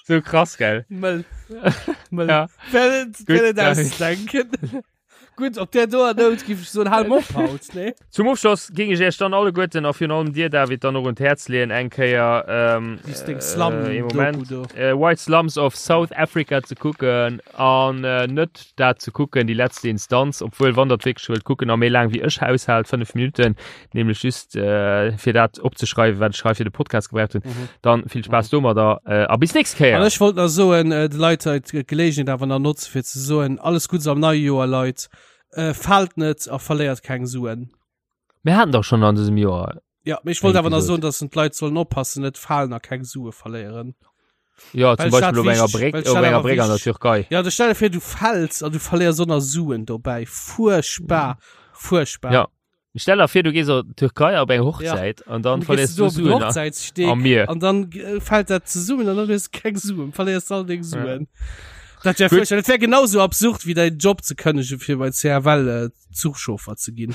So krass, gell? Mëll. Mëll. Ja. Wer net, wer net David. ausdenken. Gutt, op där doer Nout giff ech soen, hal mol op haut, nee? Zum Ofschloss géing ech Iech dann alleguerten a virun allem dir, David, dann och un d'Häerz leeën, eng Kéier, ähm, Lies deng Slum äh, ee Doku Moment, do. äh, White Slums of South Africa ze kucken an äh, net dat ze kucken, Die letzte Instanz, obwuel wann der et wierklech wëllt kucken a méi laang wéi ech aushält, 5 Minuten, nämlech just äh, fir dat opzeschreiwen, wat ech hei fir de Podcast gebraucht hunn, Mhm. dann vill Spaass domadder äh, a bis nächst An Kéier. ech wollt nach soen, äh, de Leit hei d'Gelegenheet awer nach notze fir ze soen, alles Gutts am neie Joer, Leit. Äh, faalt net a verléiert keng Suen. Mir haten dach schonn an dësem Joer. Ja, mee ech wollt Eng awer nach Episod. soen, dass den d'Leit sollen oppassen, net falen a keng Sue verléieren. Ja, Well zum ech dat Beispill op enger wichteg- Bréck, well ech op dat enger awer Bréck an der wichteg- Türkei. Ja, du stell dir vir, du fäls an du verléiers och nach Suen dobäi. Fuerchtbar. Fuerchtbar. Ja. Stell der vir, du gees an d'Türkei op eng Hochzäit an dann Dann verléiers gehst du du do op den Suen a- Hochzäitssteg am Mier. an dann äh, fällt dat zesummen an dann hues du keng Suen, verléiers all deng Suen. Dat wär Gutt. furchtbar. Dat wär genauso absurd wéi däin Job ze kënnegen fir bei CFL äh, Zuchchauffer ze ginn.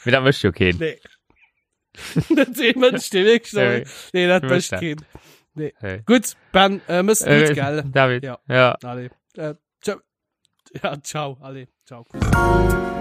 Mee dat mécht jo keen. Nee. Dat dee Mënsch, dee wierklech Nee. Nee, dat Mécht mécht dat. keen. Nee. Hey. Gutt, Ben, äh, mëss Äh, gutt, gell? David. Ja. Ja. Allez. Äh, ciao. Ja, ciao. Allez, ciao. Kuss.